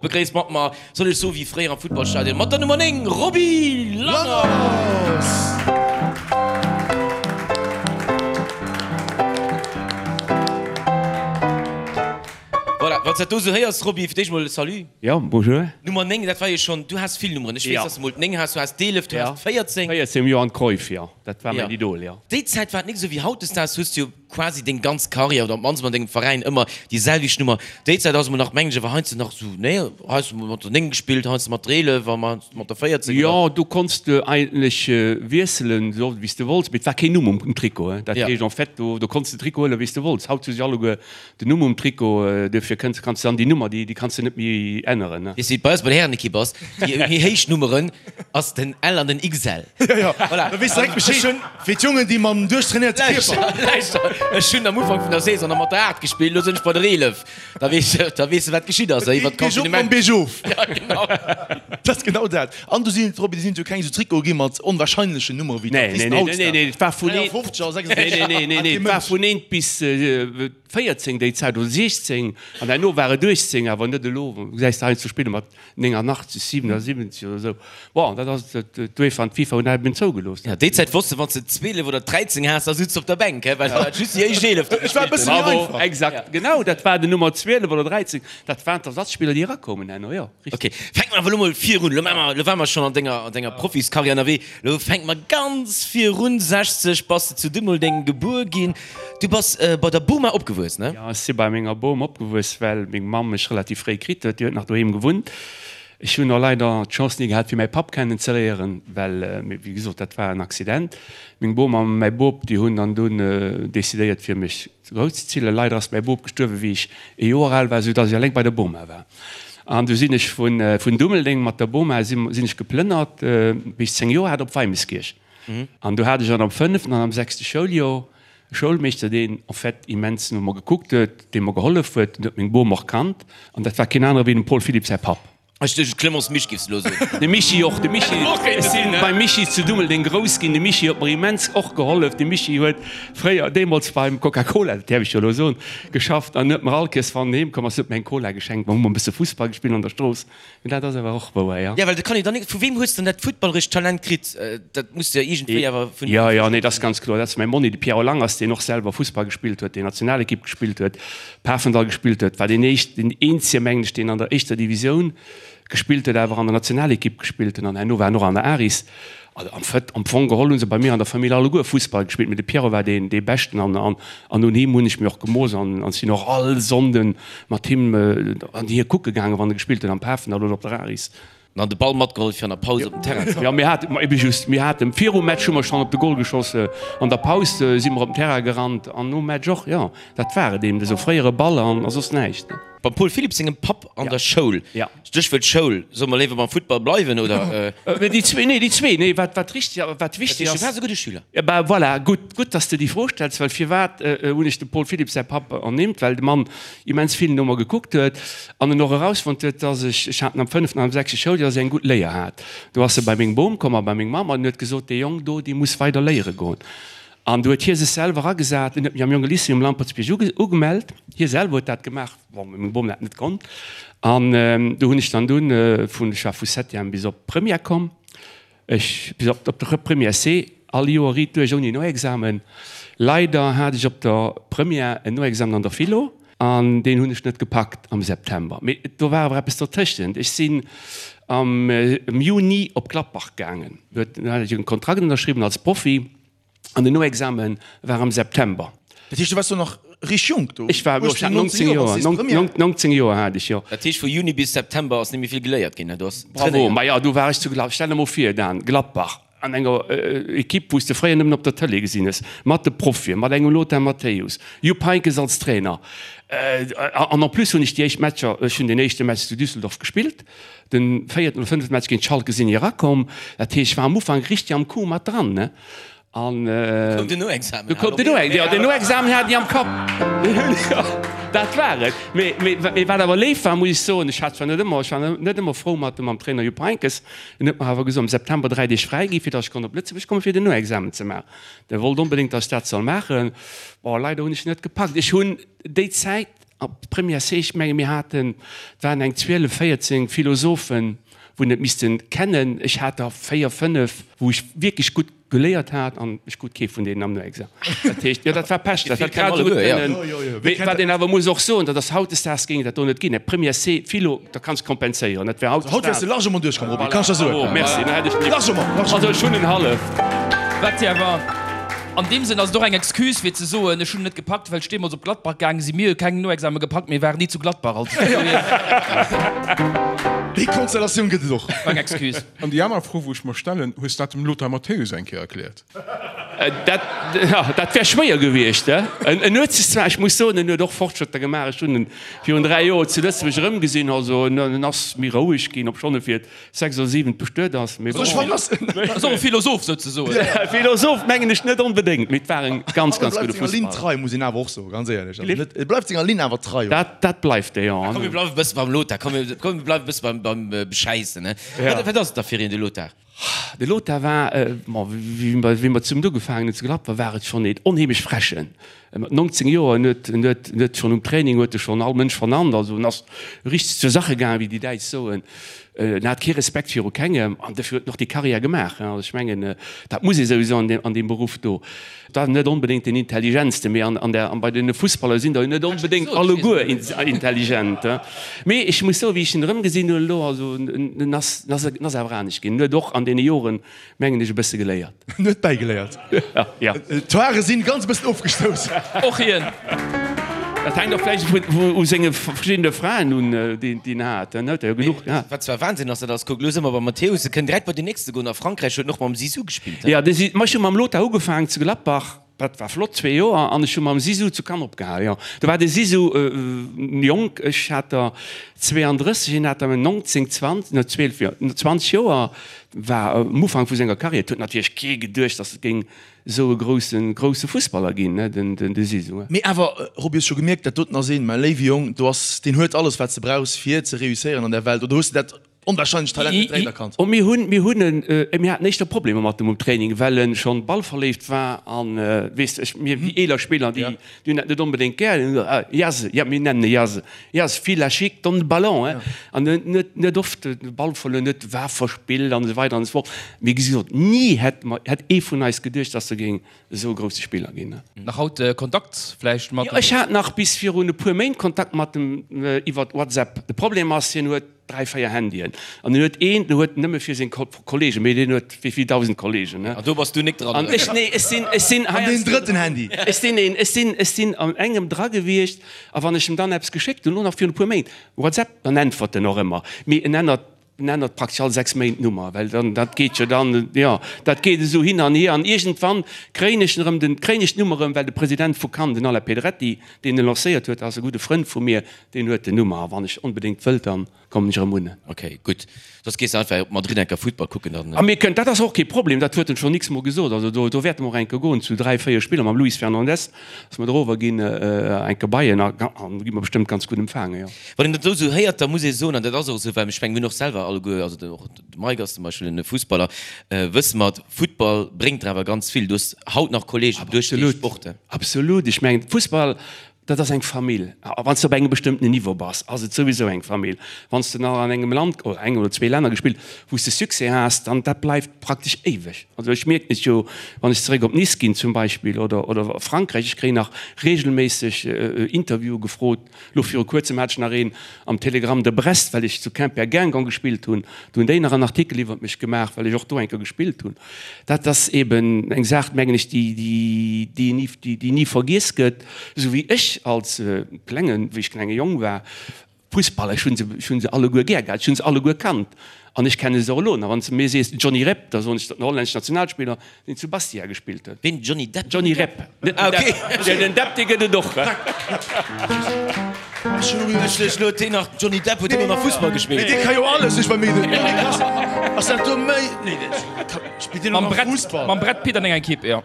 Begréisst mat mer, soll ech soen, wéi fréier am Futtballstadion, mat der Nummer 9, Roby Langers! Voilà, wann s dat do esou héiers, Roby, fir d'éischt mol Salut. Jo, bonjour. Nummer 9, dat war jo schonn, du has vill Nummeren. Ech weess, dass de mol d'Néng has, du has d'Eelef, du has d'Véierzéng. 14 um Johan Cruyff, jo, dat war mäin Idol, jo. Déi Zäit war et nik esou wéi hautdesdaags, hues du jo quasi deng ganz Karriär oder op d'mannst an dengem Veräin ëmmer déi selwecht Nummer. Déi Zäit ass emol nach, mengen ech, awer heiansdo nach esou, nee, heiansdo mol mat der 9 gespillt, heiansdo mat der 11 a heiansdo mat der 14 oder. Jo, do konns de eigentlech wiesselen, esou oft wéi s de wollts, mee et war keen Numm um Trikot. Dat heescht en fait, do do konns de Trikot huelen, wéi s de wollts. Haut hu se alleguer den Numm um Trikot, duerfir kënns kanns de dann déi Nummer, déi déi kanns de net méi änneren. Weess de wéi et bei eis bei der Härenekipp ass? Déi méi héich Nummeren ass den L an den XL. Jo, jo, da weess de direkt Bescheed. Fir d'Jongen, déi mam duerchtrainéierte Kierper. Lauschter, ech hunn am Ufank vun der Saison nach mat der 8 gespillt, elo sinn ech bei der 11. Da weess de, da weess de wat geschitt ass, iwwer d'Confinement. Geet op mam Biergof. Ja, genau. Dat ass genau dat. An do sinn et, Roby, do sinn et jo keng esou Trikote gi mat onwahrscheinlechen Nummere wéi d'Artisten haut. Nee, nee, nee, et war vun 53 a 66. Nee, nee, nee, nee, et war vun 1 bis 14 déi Zäit, oder 16, an herno war et 18, awer net elo. Gesäis de heiansdo spille mat 89, 77 oder esou. Bon, dat ass d'UEFA an d'FIFA hunn dat eben zougelooss. Ja, déi Zäit wosst de, wann s de 12 oder 13 has, da sutz de op der Bänk, he, well dat war just déi éischt 11, déi gespillt hunn. Bravo, exakt, genau, dat war den Nummer 12 oder 13, dat waren d'Ersatzspiller, déi erakoumen herno, jo, richtig. Ok, fänke mer awer elo mol virun, elo maache mer, elo ware mer schonn an denger, an denger Profiskarriär ënnerwee, elo fänke mer ganz virun, 60 bass de zu Dummeldeng gebuer ginn. Du bass bei der Boma opgewuess, ne? Jo, ech si bei menger Bom opgewuess, well meng Mamm mech relativ fréi kritt huet. Déi huet nach doheem gewunnt. Ech hunn och leider d'Chance ni gehat, fir mäi Papp kennen ze léieren, well, wéi gesot, dat war en Accident. Meng Bom a mäi Bop, déi hunn dann dunn decidéiert, fir mech grousszezillen. Leider ass mäi Bop gestuerwen, wéi ech ee Joer al war, soudass ech eleng bei der Boma war. An du sinn ech vun Dummeldeng mat der Boma sinn ech geplënnert, wéi ech 10 Joer hat, op Weimeschkierch. An do hat ech an am fënneften an am sechste Schouljoer e Schoulmeeschter, deen en fait immens no mer gekuckt huet, dee mer gehollef huet, en huet meng Bom och kannt, an dat war keen anere wéi dem Paul Philipp säi Papp. Ech duecht, Clemence Misch giffs de elo soen. De Michi och, de Michi, ech si beim Michi zu Dummeldeng grouss ginn, de Michi huet mer immens och gehollef. De Michi huet fréier, deemools beim Coca-Cola, dat däerf ech jo elo soen, geschafft an huet mer all Kéiers, wann en heem komm ass, huet mer eng Cola geschenkt. Mer hu mer e bësse Fussball gespillt an der Strooss. Mee dat ass awer och wouer, jo. Ja, well dat kann een dann net. Vu weem hues de dann dat futtballerescht Talent kritt? Dat muss de jo iergendwéi awer vun. Jo, jo, nee, dat ass ganz kloer. Dat ass mäi Monni, de Pierrot Langers, deen och selwer Fussball gespillt huet, deen Nationalekipp gespillt huet, Pafendall gespillt huet, war deen éischt, deen eenzege, mengen ech, deen an der éischter Divisioun gespillt huet, awer an der Nationalekipp gespillt huet an herno war en och an der Aris. Also am Fait, am Fong geholl hu se bei mir an der Famill alleguer Fussball gespillt, mee de Pierrot war deen, dee Beschten an, an, an un him hunn ech mir och gemooss an, an sinn och all Sonnden mat him an hie kucke gaangen, wann e gespillt huet am Pafendall oder op der Aris. An de Ball matgeholl fir an der Paus op den Terrain ze goen. Jo, mir haten, ma ebe just, mir haten virum Match hu mer schonn op de Gol geschoss, an der Paus si mer op den Terrain gerannt an nom Match och, jo, dat war et eben, esou fréiere Ball an a soss näischt. Beim Paul Philipp sengem Papp an der Schoul. Stéchwuert Schoul. Solle mer léiwer beim Futtball bleiwen, oder? Déi zwee, nee, déi zwee, nee, wat, wat richtig, wat wichtig ass. Du waars e gudde Schüler. Ja, bah, voilà, gutt, gutt, dass de déi Fro stells, well firwat hunn ech dem Paul Philipp säi Papp ernimmt? Well de Mann immens vill no mer gekuckt huet an en och erausfonnt huet, dass ech, ech hat en am fënneften an am sechste Schouljoer, dass ech eng gutt Léier hat. Do ass e bei meng Bom komm a bei meng Mamm an huet gesot, Dee Jong do, dee muss weider léiere goen. An do huet hie sech selwer agesat, en huet mech am Jonge Lycée um Lampertsbierg ugemellt. Hie selwer huet dat gemaach, bon, meng Bom dat net konnt. An do hunn ech dann dunn vun, ech war vu Septième bis op Première komm, ech bis op op de Première C, all Joer riit duerch ouni Noexamen. Leider hat ech op der Première en Noexamen an der Philo an deen hunn ech net gepackt am September. Mee do war awer eppes dertëschent, ech sinn am Juni op Gladbach gaangen, do hat ech e Kontrakt ënnerschriwwen als Profi. An den Noexamen war am September. Dat heescht, du waars do nach richteg jonk do? Ech war, jo, ech hat 19 Joer, 19 Joer hat ech, jo. Dat heescht, vu Juni bis September ass net méi vill geléiert ginn, ne? Du has Bravo, trainéiert. Maja, do war ech zu Gladbach. Stell der mol vir, Dan, Gladbach, an enger Ekipp, wou s de fréier nëmmen op der Tëlee gesinn hues, mat de Profien, mat engem Lothar Matthäus, Jupp Heynckes als Trainer. An en plus hunn ech déi éischt Matcher, ech hunn den éischte Match zu Düsseldorf gespillt, Den véierten oder fënneften Match géint Schalke sinn ech erakomm. Dat heescht, ech war am Ufank richteg am Coup mat dran, ne? An Du koum den Noexamen. Du koum den Noexamen, jo, den Noexamen hat ech am Kapp. Jo, dat war et. Mee, mee, mee wat awer léif war, muss ech soen, ech hat zwar net ëmmer, ech war net ëmmer frou mat mam Trainer Jupp Heynckes, en huet mer awer gesot, am September 3 Deeg fräi gi fir datt ech konnt op Lëtzebuerg kommen, fir den Noexamen ze maachen. De wollt onbedéngt, datt ech dat soll maachen. Bon, leider hunn ech net gepackt. Ech hunn déi Zäit. Op Première C, ech menge mir haten, et waren eng 12, 14 Philosophen, wou en et missten kennen. Ech hat der 4, 5, wou ech wierklech gutt geléiert hat an ech krut kee vun deenen am Noexamen. Dat heescht, jo dat war Pech, dat hätt grad esou gutt kënnen. Mee wat een awer muss och soen, dat ass hautdesdaags géing et dat do net ginn. Première C Philo, da kanns de kompenséieren, dat wär hautdesdaags. Haut wäers de largement duerchkomm, Roby, kann ech der soen. Oh merci, da hätt ech mech. Largement, largement. Also ech hunn en halleft. Wat jo awer an deem Sënn ass et och eng Excuse fir ze soen, ech hunn et net gepackt, well ech deemools op Gladbach gaange sinn. Mir hu keng Noexame gepackt, mir waren ni zu Gladbach, also. Déi Konstellatioun gëtt et och. War eng Excuse. An déi aner Fro, wou ech mer stellen, Hues dat dem Lothar Matthäus eng Kéier erkläert? Dat, jo, dat wär schwéier gewiescht. En huet sech zwar, ech muss soen, en huet och Fortschrëtter gemaach. Ech hunn en virun 3 Joer zu Lëtzebuerg erëmgesinn. Also en ass méi roueg ginn, obschonn e fir 6 oder 7 bestuet ass. Mee bon. Ass och e Philosoph souzesoen. Philosoph mengen ech net onbedéngt, mee et war en ganz, ganz gudde Fussballer. E bleift senger Linn trei, muss een awer och soen, ganz éierlech. Also net, e bleift senger Linn awer trei. Dat, dat bleift e, jo. Komm, mir bleiwe bësse beim Lothar. Komm, mir bleiwe bësse beim, beim Beschäissen, ne? Wat ass et da fir een, de Lothar? De Lothar war, ma wéi mer zesummen ugefaangen hunn zu Gladbach, war et schonn een onheemlech Frechen. Mat 19 Joer, en huet, en huet, en huet schonn um Training huet e schonn all Mënsch vernannt. Also en ass richteg zur Sache gaangen, wéi déi Däitsch soen. En hat kee Respekt viru kengem an dofir huet en och déi Karriär gemaach. Also ech mengen, dat muss ee souwisou an deem, an deem Beruff do. Et war net onbedéngt deen intelligentste, mee an der, bei den Fussballer sinn der jo net onbedéngt alleguer intelligent. Mee ech muss soen, wéi ech en erëmgesinn hunn elo, also en ass, en ass, en ass awer anescht ginn. En huet och an deene Joren, mengen ech, e bësse geléiert. En huet bäigeléiert. Ja. D'Hoare sinn ganz e bëssen ofgestouss. Och hien. Dat hänkt och vläicht u senge verschiddene Fraen un, déi en hat. En huet der jo genuch gehat. Wat zwar Wahnsinn ass, dat ass, kuck, elo si mer beim Matthäus, e kënnt direkt bei den nächste goen. A Frankräich huet en och mam Zizou gespillt. Jo, de Zi, ma ech hu mam Lothar ugefaangen zu Gladbach, dat war flott, zwee Joer, an ech hu mam Zizou zu Cannes opgehal, jo. Do war de Zizou jonk, ech hat der 32, hien hat der 19, 20, no 12 Joer, no 20 Joer, war am Ufank vu senger Karriär. Et huet natierlech kee geduecht, datt et géing esou e groussen, grousse Fussballer ginn, ne, den, den, de Zizou. Mee awer, Roby, hues scho gemierkt, dat doten ass een, mäi léiwe Jong, do ass, deen huet alles, wat s de brauchs, fir ze réusséieren an der Welt, oder hues de dat onwahrscheinlecht Talent net direkt erkannt? Oh, mir hunn, mir hunn en, mir haten éischter Problemer mat em um Training, well en schonn ballverléift war an, weess de, ech, mir, déi eeler Spiller, déi, déi hunn dat net onbedéngt gär, Jase, ja, mir nennen e Jase, Jase, vill la chic, donne le ballon, hein, an en huet net oft de Ball verluer, en huet war verspillt an esou weider an esou fort. Mee gesot, ni hätt mer, hätt ee vun eis geduecht, dass e géing esou e grousse Spiller ginn. Nach haut Kontakt vläicht mat Jo, ech hat nach bis virun e puer Méint Kontakt mat em iwwert WhatsApp. De Problem ass, hien huet 3, 4 Handyen an en huet een, deen huet nëmme fir seng Kollegen, mee deen huet wéi vill 1.000 Kollegen, ne? An do bass du nik dran, An ech, nee, ech sinn, ech sinn An deen drëtten Handy. Ech sinn een, ech sinn, ech sinn an engem dra gewiescht a wann ech em dann eppes geschéckt hunn, elo nach virun e puer Méint, WhatsApp, dann äntwert en och ëmmer, mee en ännert, en ännert praktesch all 6 Méint d'Nummer, well dann, dat geet jo dann, jo, dat geet esou hin an hier an iergendwann kréien ech en erëm, den, kréien ech d'Nummer erëm, well de President vu Cannes, den Alain Pedretti, deen e lancéiert huet, ass e gudde Frënd vu mir, Deen huet den Nummer a wann ech onbedéngt wëllt, dann kommen ech erëm un. Ok, gutt. Soss gees de einfach op Madrid enker Futtball kucken, dann. A mir kënnen, dat ass och kee Problem, dat huet en schonn x-mol gesot, also do, do wäerte mer och enker goen zu 3, 4 Spiller mam Luis Fernandes, dass mer dorower ginn, enker bei en a an gi mer bestëmmt ganz gutt empfaangen, jo. Wann een dat elo esou héiert, da muss ee soen, an dat ass och esou, well ech mengen, mir hunn och selwer alleguer, also den, och de Mike ass zum Beispill en Fussballer, wësse mer, Futtball bréngt der awer ganz vill. Du hues haut nach Kollegen duerch dee Sport. Absolut, ech mengen, Fussball, Dat ass eng Famill. A wann s de op engem bestëmmtenen Niveau bass, ass et souwisou eng Famill. Wann s de nach an engem Land oder engem oder zwee Länner gespillt, wou s de Succès has, dann dat bleift praktesch éiweg. Also ech mierken et jo, wann ech zeréck op Nice ginn zum Beispill oder oder Frankräich, ech kréien nach reegelméisseg Interviewe gefrot. Elo viru kuerzem hat ech nach een am Télégramme de Brest, well ech zu Quimper-Guingamp gespillt hunn. Do hunn déi nach en Artikel iwwert mech gemaach, well ech och do eng Kéier gespillt hunn. Dat ass eben eng Saach, mengen ech, déi, déi ni, déi ni vergiess gëtt. Esou wéi ech als klengen, wéi ech klenge Jong war, Fussballer, ech hunn se, ech hunn se alleguer gär gehat, ech hunn se alleguer kannt an ech kenne se och elo nach. Wann s de mir sees Johnny Rep, da soen ech, dat den hollänneschen Nationalspiller, deen zu Bastia gespillt huet. Ween? Johnny Depp? Johnny Rep, net den Depp. Den Depp, dee gëtt et och. Ech lo deen nach Johnny Depp huet ëmmer nach Fussball gespillt. Mee dee ka jo alles, ech bei mir ass dat do méi nee spillt deen och nach Fussball? Mam Brad Pitt an enger Equipe, jo.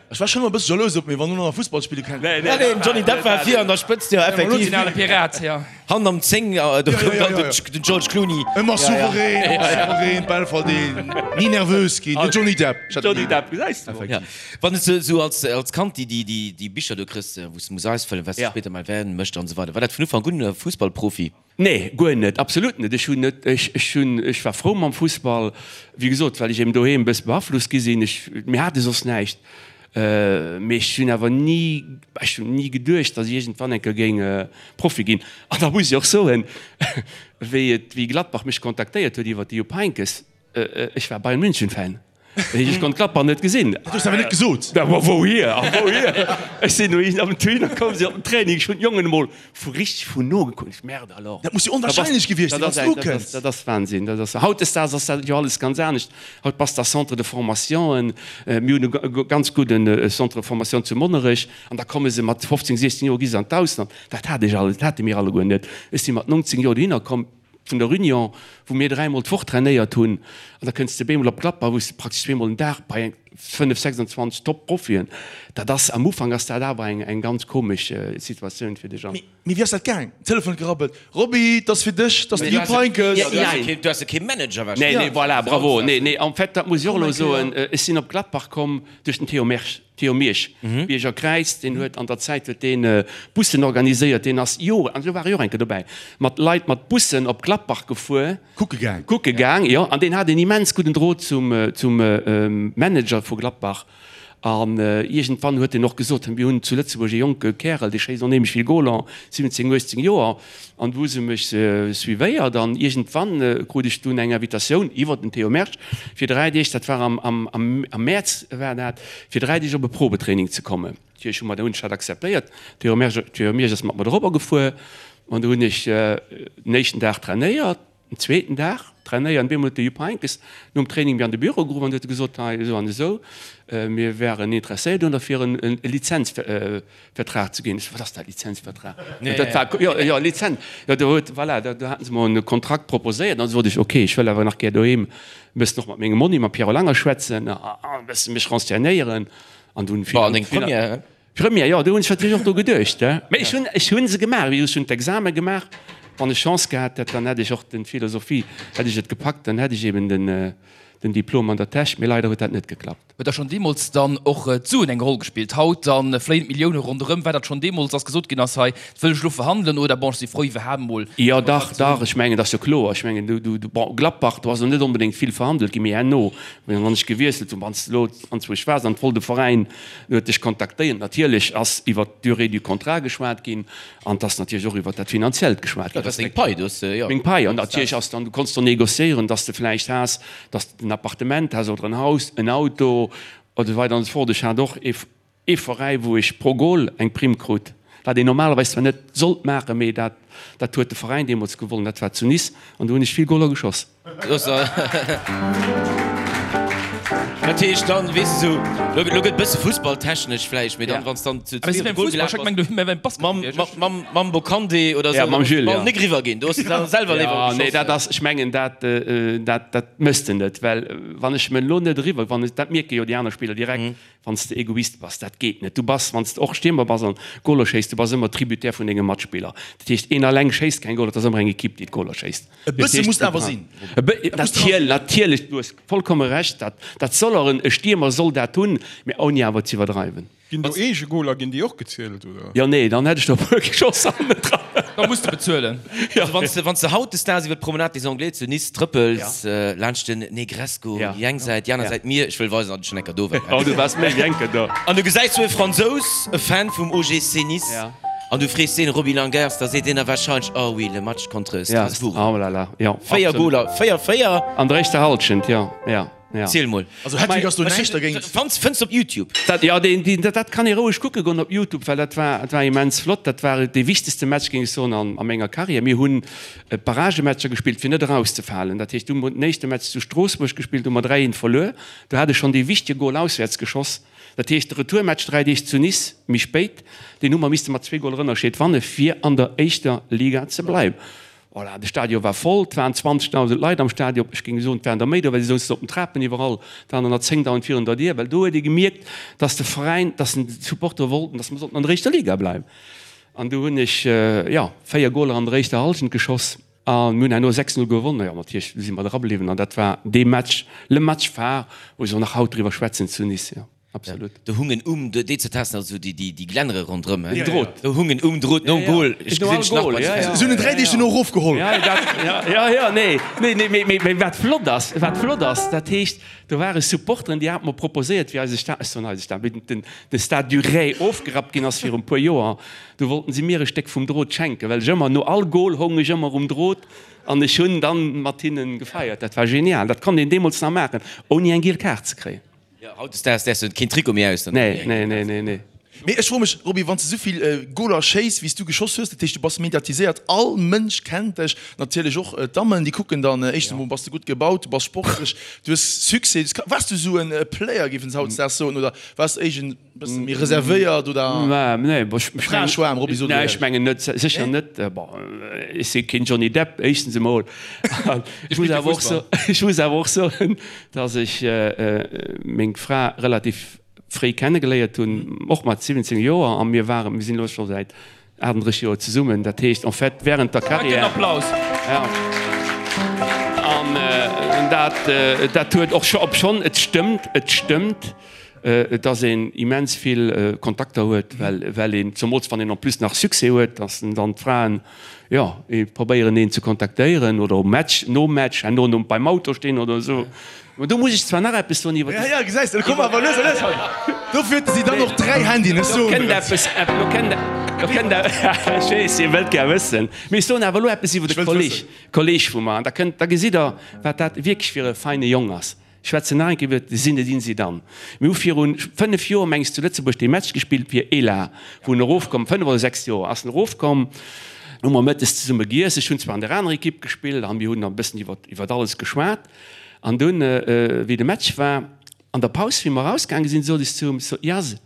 Ech war schonn ëmmer e bësse jalous op mee wann en och nach Fussball spille kann. Nee, nee, den Johnny Depp war vir an der Spëtzt, jo effektiv. Den ale Pirat, jo. Hannen am 10, do koum dann den George Clooney. Ëmmer souverän, ëmmer souverän, d'Bäll verdeelen, ni nervös ginn, den Johnny Depp. Johnny Depp, gesäis de mol. Wann s de sou als, als Kand déi, déi, déi, déi Bicher do kriss, wou s de muss ausfëllen, wat s de spéider mol werden möchte an esou weider, war dat vun Ufank un Fussballprofi? Nee, guer net, absolut net. Ech hunn net, ech, ech hunn, ech war frou mam Fussball, wéi gesot, well ech eben doheem e bësse beaflosst gi sinn. Ech, mir hate soss näischt. Mee ech hunn awer ni, ech hunn ni geduecht, datt ech iergendwann eng Kéier géing Profi ginn. An da muss ech och soen, wéi et, wéi Gladbach mech kontaktéiert huet iwwer de Jupp Heynckes, ech war Bayern München Fan. Ech konnt Gladbach net gesinn. Dat hues de awer net gesot. Da ma wouhier a wouhier? Ech sinn dohin am Tuin, da koume si op den Training, ech hunn d'Jongen emol vu richteg vun no gekuckt, merde alors. Dat muss jo onwahrscheinlech gewiescht sinn, wann s du ukënns. Dat ass Wahnsinn. Dat ass, hautdesdaags ass dat jo alles ganz anescht. Haut bass de a Centre de formationen. Mir hunn e ganz gudden Centre de formation zu Monnerech an da komme se mat 15, 16 Joer gi se an d'Ausland. Dat hat ech alles, dat hate mir alleguer net. Ech si mat 19 Joer dohinner komm vun der Union, wou mir dräimol d'Woch trainéiert hunn an da kënns de bemol op Gladbach, wou s de praktesch zweemol den Dag bei eng 5, 26 Top-Profien. Dat ass, am Ufank ass dat awer eng, eng ganz komesch Situatioun fir dech an. Mee wéi ass dat gaang? Telefon huet gerabbelt, Roby, 't ass fir dech, 't ass de Jupp Heynckes. Du has jo kee Manager warscheinlech. Nee, nee, voilà, bravo. Nee, nee, en fait, dat muss ech och elo soen, ech sinn op Gladbach komm duerch den Théo Mersch, Théo Miersch, Bierger Kräiz, deen huet an der Zäit huet deen Bussen organiséiert, deen ass Joren, an do war ech och eng Kéier dobäi, mat Leit mat Bussen op Gladbach gefuer. Kucke gaang. Kucke gaang, jo. An deen hat en immens gudden Drot zum, zum Manager vu Gladbach. An iergendwann huet en och gesot, mir hunn zu Lëtzebuerg e jonke Kärel, dee schéisst onheemlech vill Goler, 17, 18 Joer. An du hu se mech suivéiert an iergendwann krut ech dunn eng Invitatioun iwwer den Théo Mersch fir 3 Deeg, dat war am, am, am Mäerz war dat, fir 3 Deeg op e Probetraining ze kommen. Natierlech hu mer, hunn ech dat akzeptéiert. Théo Mersch, Théo Miersch ass mat mer dorobber gefuer an du hunn ech den éischten Dag trainéiert. Den zweeten Dag trainéieren. Bemol huet de Jupp Heynckes nom Training mir an de Büro geruff an huet gesot, hei esou an esou, mir wären interesséiert un der fir en Lizenzvertrag ze ginn. Ech sou, wat ass dat, Lizenzvertrag? Dat war, jo, jo, Lizenz, jo, do huet, voilà, do haten se mer e Kontrakt proposéiert. An du sot ech, ok, ech wëll awer nach gär doheem e bëssen och mat mengem Monni, mam Pierrot Langer schwätzen a e bësse mech renseignéieren. An dunn. Bon, an deng Première? Première, jo, do hunn ech natierlech och dru geduecht, he. Mä ech hunn, ech hunn se gemaach, wéi gesot, ech hunn d'Exame gemaach. Wann ech Chance gehat hätt, dann hätt ech och den Philosophie, hätt ech et gepackt, dann hätt ech eben den, den Diplom an der Täsch. Mee leider huet dat net geklappt. Huet da schonn deemools dann och d'Suen eng Roll gespillt? Haut dann fléien d'Millioune ronderëm. War dat schonn deemools, datt gesot ginn ass, hei, dat wëll ech elo verhandelen oder bon, ech si frou iwwerhaapt emol Jo, dach, dach, ech mengen, dat ass jo kloer. Ech mengen, du, du, bon, Gladbach, do ass elo net onbedéngt vill verhandelt ginn, mee herno, wann ech gewiesselt hunn, wann s de elo anzwousch waars an et wollt e Veräin, En huet dech kontaktéiert. Natierlech ass iwwert d'Durée du contrat geschwat ginn an et ass natierlech och iwwert dat Finanziellt geschwat ginn. Dat ass deng Pai, du hues, jo. Meng Pai. An natierlech ass dann, du konns do négociéieren, dass de vläicht has, dass de en Appartement has oder en Haus, en Auto oder esou weider an esou fort. Ech hat och ee, ee Veräi, wou ech pro Goal eng Primm krut, wat een normalerweis zwar net sollt maachen, mee dat, dat huet de Veräin deemools gewollt, dat war zu Nice an do hunn ech vill Goaler geschoss. Dat heescht dann, weess de sou, lo lo gëtt bësse fussballtechnesch vläicht, mee dann, wann s dann zu zwee op de Goal gelaf bass, mam mam mam Bocandé oder sou, da muss de Ball nik eriwwer ginn, do hues de dann selwer léiwer geschoss. Nee, dat ass, ech mengen, dat dat dat méchs de net, well wann ech me lo net eriwwer, wann ech, dat mierke jo déi aner Spiller direkt, Wann s de Egoist bass, dat geet net. Du bass, wann s de och Stiermer bass an Goler schéiss, du bass ëmmer Tributaire vun denge Matspiller. Dat heescht, een alleng schéisst keng Goler, et ass ëmmer eng Ekipp, déi d'Goler schéisst. E bësse muss awer sinn. Natierlech, du hues vollkomme Recht, dat, dat soll och en, e Stiermer soll dat hunn, mä ouni awer z'iwwerdreiwen. Ginn do Eegegoler, ginn déi och gezielt, oder? Jo, nee, dann hätt ech der e puer geschoss hannendran. Da muss de bezuelen. Also wann s de, wann s de hautdesdaags iwwer d'Promenade des Anglais zu Nice trëppels, laanscht den Negresco, déi eng Säit, déi aner Säit Mier, ech wëll weisen, datt ech schonn eng Kéier do war. Oh, du waars méi wéi eng Kéier do. An du gesäis sou e Fransous, e Fan vum OGC Nice, an du frees deen, Roby Langers, da seet deen der warscheinlech, Oh oui, le match contre Strasbourg. Oh là là, jo. 4 Goler, 4, 4. An der éischter Hallschent, jo, jo. Ja. Ziel mol. Also Hattrick ass do näischt dergéint. Fans, fënns op Youtube. Dat, jo, deen, deen, dat, dat kann ee roueg kucke goen op Youtube, well dat war, dat war immens flott. Dat war dee wichtegste Match, géing ech soen, an, a menger Karriär. Mir hunn Barragematcher gespillt, fir net erauszefalen. Dat heescht, du hu mer den éischte Match zu Stroossbuerg gespillt, hu mer 3, 1 verluer. Do hat ech schonn dee wichtege Gol auswäerts geschoss. Dat heescht, de Retourmatch 3 Deeg zu Nice méi spéit, deen hu mer misste mat zwee Goler Ënnerscheed wanne fir an der éischter Liga ze bleiwen. Voilà, de Stadion war voll, et waren 20.000 Leit am Stadion, ech géing soen, et waren der méi do, well si souzen op den Trapen iwwerall, et waren der nach 10.000 virun der Dier, well do huet ee gemierkt, dass de Veräin, dass d'Supportere wollten, dass mer sollten an der éischter Liga bleiwen. An du hunn ech, jo, 4 Goler an der éischter Hallschent geschoss a mir hunn herno 6, 0 gewonnen. Jo, natierlech si mer dra bliwwen an dat war dee Match, le Match phare, wou se och nach haut driwwer schwätzen zu Nice, jo, absolut. Do hungen um, déi ze testen, also déi, déi Glännere ronderëm, he? Drot. Do hungen um Drot nom Goal, ech gesinn dech nach bei de. Se hunn en 3 Deeg dono erofgeholl. Jo, dat, jo, jo, nee, nee, nee, mee, mee, mee wat flott ass, wat flott ass, dat heescht, Do ware Supporteren, déi hate mer proposéiert, wéi eise Stade, ech soen eise Stade, wéi den de Stade du Ray ofgerappt ginn ass viru puer Joer, do wollten si mir e Stéck vum Drot schenken, well ech ëmmer no all Goal houng ech ëmmer um Drot an ech hunn dann mat hinnen gefeiert. Dat war genial. Dat konnt een deemools nach maachen, ouni eng giel Kaart ze kréien. Jo, hautdesdaags däerfs de keen Trikot méi aus. Nee, nee, nee, nee, nee. Mee ech froe mech, Roby, wann s de souvill Goler schéiss, wéi s du geschoss hues, dat heescht, du bass mediatiséiert, all Mënsch kennt dech, natierlech och d'Dammen, déi kucken dann, éischtens emol bass de gutt gebaut, du bass sportlech, du hues Succès. Waars du esou e Player, géifen se hautdesdaags soen, oder waars de éischt e bësse méi reservéiert oder Fraeschwaarm, Roby, so du Nee, ech mengen net, sécher net. Bon, ech si keen Johnny Depp, éischtens emol. Ech muss awer och soen, ech muss awer och soen, datt ech meng Fra relativ fréi kennegeléiert hunn, och mat 17 Joer, a mir waren, mir sinn elo scho säit 38 Joer zesummen, dat heescht en fait während der Carrière. Applaus. Ja. An dat, dat huet och scho, obschonn et stëmmt, et stëmmt, dass een immens vill Kontakter huet, well, well een, zemools wann een en plus nach Succès huet, dass dann d'Fraen, jo, probéieren een ze kontaktéieren oder um Match, nom Match, herno nom, beim Auto stinn oder esou. Mä do muss ech zwar nach eppes soen iwwer. Ja, ja, gesäis de, komm awer lues a lues hei. Dofir huet si dann och 3 Handyen, ech soen der et. Eppes, lo kënnt, lo kënnt, ech weess, Dir wëllt gär wëssen. Mee ech soen awer elo eppes iwwer de Kolleg, Kolleg vu mer. An da kënnt, da gesitt Der, wat dat wierklech fir e feine Jong ass. Ech schwätzen nach eng Kéier iwwer de Zinedine Zidane. Mir hu viru 5 Joer, meng ech, zu Lëtzebuerg dee Match gespillt fir Elah, wou en erofkomm, 5 oder 6 Joer ass en erofkomm. Hu mer mëttes zesumme giess. Ech hunn zwar an der anerer Ekipp gespillt a mir hunn e bëssen iwwer, iwwer alles geschwat. An dunn, wéi de Match war, an der Paus, wéi mer erausgaange sinn, sot ech zu him, sot, Jaz,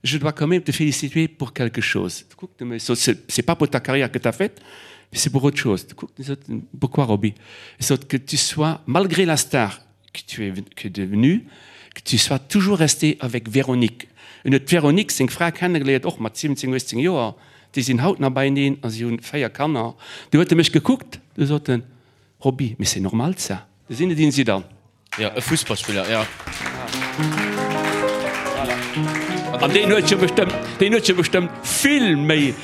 je dois quand même te féliciter pour quelque chose. Du kuckt e mech, sot, C'est pas pour ta carrière que t'as faite, mais c'est pour autre chose. Du kuckt en, sot, Pourquoi, Roby? Ech sot, Que tu sois, malgré la star que tu es que devenue, que tu sois toujours resté avec Véronique. En huet d'Véronique, seng Fra, kennegeléiert, och mat 17, 18 Joer. Déi sinn haut nach beieneen a si hunn 4 Kanner. Du huet e mech gekuckt, du sot en, Roby, mais c'est normal ça. De Zinedine Zidane. Jo, e Fussballspiller, jo. An deen huet jo bestëmmt, deen huet jo bestëmmt vill méi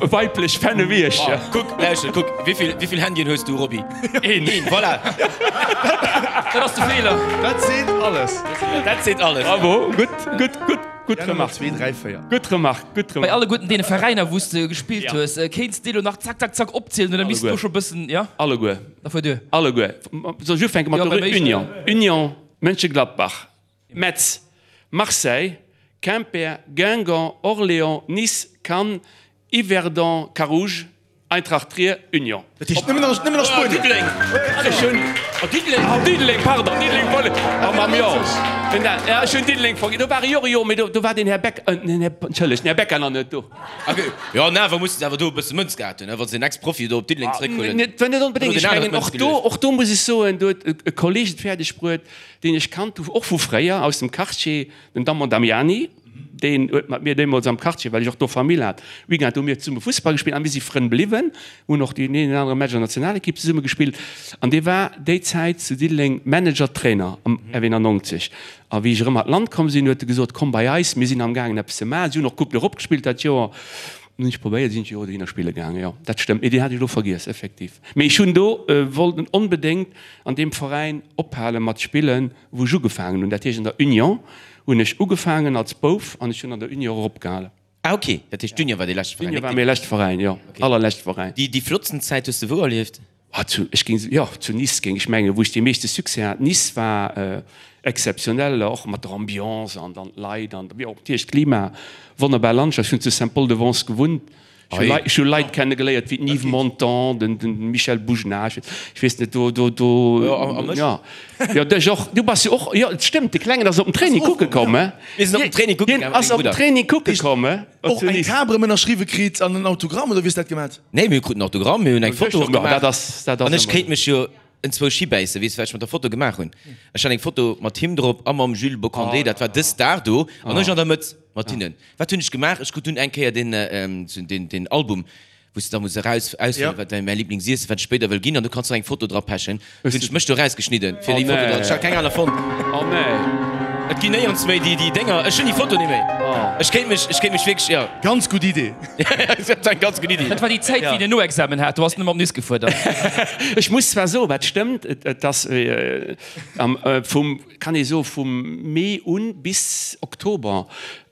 weiblech Fännen wéi ech. Kuck, lauschter, kuck, wéivill, wéivill Handyen hues du, Roby? Een. Een, voilà. Dat ass de Feeler. Dat seet alles. Dat seet alles. Bravo, gutt, gutt, gutt. Gutt Remark. 2, 3, 4. Gutt Remark, gutt Bei Remark. alleguerten deene Veräiner, wou s de gespillt hues, kéints de elo nach zack, zack, zack opzielen oder misst do scho bëssen, jo? Alleguer. Da fuer duer. Alleguer. Soll ech ufänke mat Jo, der beim éischten. Union? Union, Mönchengladbach, Metz, Marseille, Quimper, Guingamp, Orléans, Nice, Cannes, Yverdon, Carouge, Eintracht Trier, Union. Dat heescht nëmmen nach, nëmmen nach Spuenien. Diddeleng. Ech hunn. Oh, Diddeleng, oh, Diddeleng, pardon, Diddeleng wollt ech. Oh, mam Jo. Ja, ech hunn Diddeleng vergiess. Do war e jo, jo, mee do, do war den Här Beck, äh, den Här, entschëllegt, den Här Becker nach net do. Okay. Jo, an awer musse se awer do e bësse Mënz gehat hunn, wa se en Ex-Profi do op Diddeleng zeréckhuelen. Net, net onbedéngt. Ech mengen, och do, och do muss ech soen, do huet e Kolleg et fäerdeg bruet, deen ech kannt hu, och vu fréier, aus dem Quartier, den Damon Damiani. Deen huet mat mir deemools am Quartier, well ech och do Famill hat, Weekend hu mir zesumme Fussball gespillt a mir si Frënn bliwwen, hunn och deen een oder anere Match an der Nationalekipp zesumme gespillt. An dee war déi Zäit zu Diddeleng Manager, Trainer am F91. A wéi ech erëm an d'Land komm sinn, huet e gesot, Komm bei eis, mir sinn amgaangen eppes ze maachen. Si hunn och Coupe d'Europe gespillt dat Joer. Hunn ech probéiert, sinn ech jo dohinner spille gaangen. Jo, dat stëmmt, mee deen hat ech elo vergiess, effektiv. Mee ech hunn do wollten onbedéngt an deem Veräin ophale mat spillen, wou ech ugefaangen hunn, dat heescht an der Union hunn ech ugefaangen als Bouf an ech hunn an der Union och opgehalen. Ah ok, dat heescht d'Union war dee leschte Veräin? D'Union war mäi leschte Veräin, jo, allerleschte Veräin. Déi flottsten Zäit hues de wou erlieft? Ah, zu, ech géing, jo, zu Nice géing ech mengen, wou ech dee meeschte Succès hat. Nice war exzeptionell, och mat der Ambiance an dann d'Leit an, jo, natierlech d'Klima, wonnerbar Landschaft. Ech hunn zu Saint-Paul-de-Vence gewunnt, Ech hu Leit kenne geléiert wéi den Yves Montand, den Michel Boujenah, ech weess net, do, do, do, jo, jo, dech och, du bass jo och, jo, et stëmmt, de Klengen ass op den Training kucke komm, he? Mir sinn op den Training kucke gaangen, ass op den Training kucke komm, he? Och eng Kap erëm ënnerschriwwe kritt an en Autogramm, oder wéi hues dat gemat? Nee, mir kruten Autogramm, mir hunn eng Foto och gemaach. Dat ass, dat ass An ech kéint mech jo enzwousch hibäissen, weess du, wat ech mat der Foto gemaach hunn? Ech hat eng Foto mat him drop a mam Jules Bocandé, dat war dës Dag do, an ech an der Mëtt. Mat hinnen. Wat hunn ech gemaach? Ech krut dunn eng Kéier deen, deen, deen Album, wou s de da muss eraus, auswielen, wat däi mäi Liblingsiessen, wat ech spéider wëll ginn, an du kanns nach eng Foto dra pechen. Du hunn ech mech do erausgeschnidden, fir déi Foto dran. Ech hat keng aner fonnt. Oh nee. Et ginn néierens méi déi, déi Dénger. Ech hunn déi Foto net méi. Ech kéint mech, ech kéint mech wierklech, jo. Ganz gutt Idee. Dat war eng ganz gutt Idee. Dat war déi Zäit, wéi een en Noexamen hat. Do ass en ëmmer op Nice gefuer dann. Ech muss zwar soen, wat stëmmt, et ass am, vum, kann ee soen, vum Mee un bis Oktober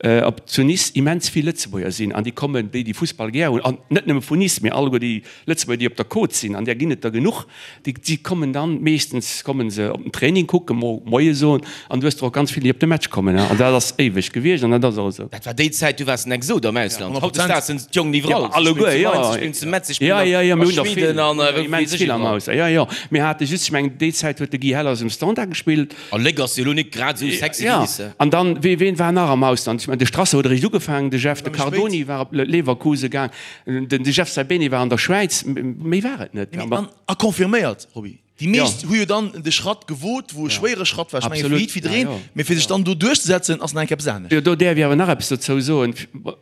op zu Nice immens vill Lëtzebuerger sinn an déi kommen, déi déi Fussball gär hunn, an net nëmme vun Nice, mee alleguer déi Lëtzebuerger, déi op der Côte sinn, an där ginn et der genuch, déi si kommen dann, meeschtens kommen se op den Training kucken, mo Moie soen, an du hues der och ganz vill, déi op de Match kommen, an dat ass éiweg gewiescht an dat ass och esou. Dat war déi Zäit, du waars en Exot am Ausland. Hautdesdaags sinn d'Jongen iwwerall. Ja, alleguer, jo. Si spillen zu Metz, si spillen a Schweden an wou weess ech iwwerall. Jo, jo, mir hate just, ech mengen, déi Zäit huet de Guy Hellers um Standard gespillt. A Léck ass jo elo nik grad esou sexy wéi Nice. Jo, an dann, wee, ween war nach am Ausland? Ech mengen, de Strasser huet eréischt ugefaangen, de Jeff, de Cardoni war op Leverkusen gaang, den de Jeff Saibene war an der Schwäiz, méi war et net. Mee, an, a confirméiert, Roby, déi meescht hu jo dann de Schratt gewot, wou e schwéiere Schratt war, ech menge fir jiddwereen, mee fir sech dann do duerchzesetzen, ass nach eng Kéier eppes anescht. Jo, do däerf ech awer nach eppes dozou soen.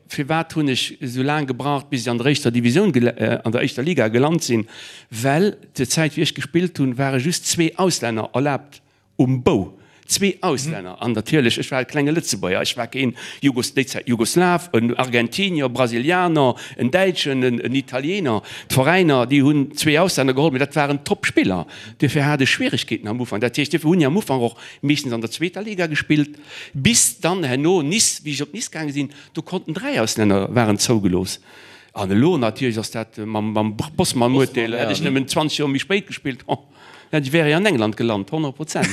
Firwat hunn ech esou laang gebraucht, bis ech an der éischter Divisioun, an der éischter Liga gelant sinn? Well zur Zäit, wéi ech gespillt hunn, ware just zwee Auslänner erlaabt Um Bou, zwee Auslänner an natierlech, ech war e klenge Lëtzebuerger, ech war keen Jugos, déi Zäit Jugoslaw, en Argentinier, Brasilianer, en Däitschen, en Italiener. D'Veräiner, déi hunn zwee Auslänner geholl, mee dat waren Top-Spiller. Duerfir hat ech Schwieregkeeten am Ufank. Dat heescht, duerfir hunn ech am Ufank och meeschtens an der zweeter Liga gespillt, bis dann herno Nice, wéi ech op Nice gaange sinn, do konnten 3 Auslänner waren zougelooss. An elo natierlech ass dat mam Bosman-Urteel, hätt ech nëmmen 20 Joer méi spéit gespillt, oh. Ech wär an England gelant, 100 Prozent.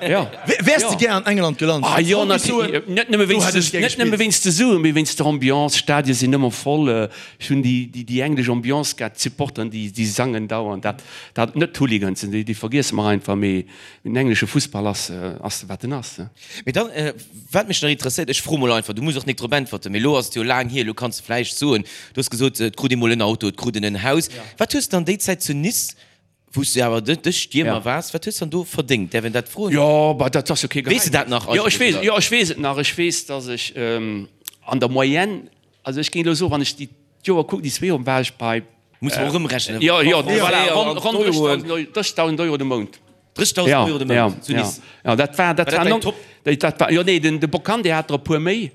Jo. Wäers de gär an England gelant? Ah jo, natierlech. Net nëmme wéinst, net nëmme wéinst de Suen, mee wéinst der Ambiance. D'Stadie sinn ëmmer voll. Ech hunn déi, déi, déi englesch Ambiance gär, d'Supporteren, déi, déi sangen dauernd. Dat, dat, net d'Hooligans, déi, déi vergiesse mer einfach, mee den englesche Fussball ass, ass wat en ass. Mee dann, wat mech nach interesséiert, ech froe mol einfach, du muss och nik drop äntwerten, mee elo ass et jo laang hier, elo kanns de vläicht soen, du hues gesot, et krut ee mol en Auto, et krut een en Haus. Wat hues de an déi Zäit zu Nice Wou s du awer de de Stiermer waars, wat hues dann do verdéngt? Däerf een dat froen? Jo, bah, dat ass jo kee Geheimnis. Weess de dat nach Jo, ech weess, jo, ech weess et nach. Ech weess, dass ech an der Moyenne, also ech géing elo soen, wann ech déi d'Joer kucken, déi zwee Joren, war ech bei. Muss mer och ëmrechnen. Jo, jo, voilà, ronn, ronn 30.000 Euro de Mount. 30.000 Euro de Mount zu Nice. Ja, dat war, dat war däin Top? Dat war, jo, nee, den, de Bocandé hat der e puer méi.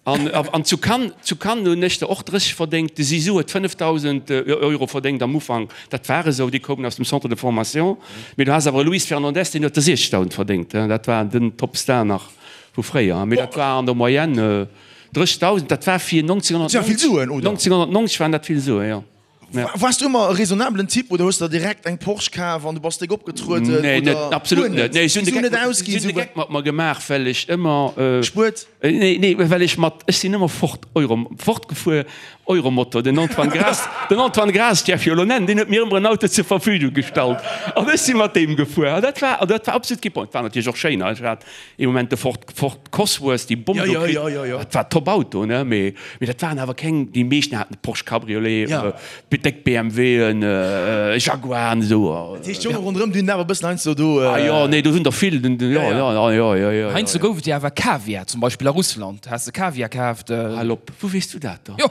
An, an zu Cannes, zu Cannes hunn ech der och 30 verdéngt. De Zizou huet 5.000 Euro verdéngt am Ufank. Dat war esou, déi koumen aus dem Centre de formation. Mee du has awer e Luis Fernandez, deen huet der 60.000 verdéngt. Dat war den Topstar nach vu fréier. Mee dat war an der Moyenne 30.000. Dat war fir 1990 waren dat vill Suen, jo. Waars du ëmmer e raisonnabelen Typ oder hues der direkt eng Porsche kaf an du bass déck opgetrueden? Nee, net, absolut net. Nee, ech hunn de Geck, ech hunn de Geck mat mer gemaach, well ech ëmmer. Gespuert? Nee, nee, well ech mat, ech sinn ëmmer Ford Euro, Ford gefuer, Euromotor. Den Antoine Graas, den Antoine Graas, däerf jo elo nennen, deen huet mir ëmmer en Auto zur Verfügung gestallt an ech si mat deem gefuer. An dat war, an dat war absolut kee Problem. Et war natierlech och schéin, ech hat ee Moment de Ford, Ford Cosworth, déi Bomm do kritt, dat war top Auto, ne, mee, mee dat waren awer keng, déi meeschten haten Porsche Cabriolet, déck BMWen, Jaguaren esou. Dat heescht, d'Jonge ronderëm, déi hunn awer e bëssen heiansdo do. Ah jo, nee, do sinn der vill, den, jo, jo, jo, jo, jo, jo. Heiansdo gouf et jo awer Kaviar, zum Beispill a Russland has de Kaviar kaaft. Hal op, wou weess du dat dann? Jo,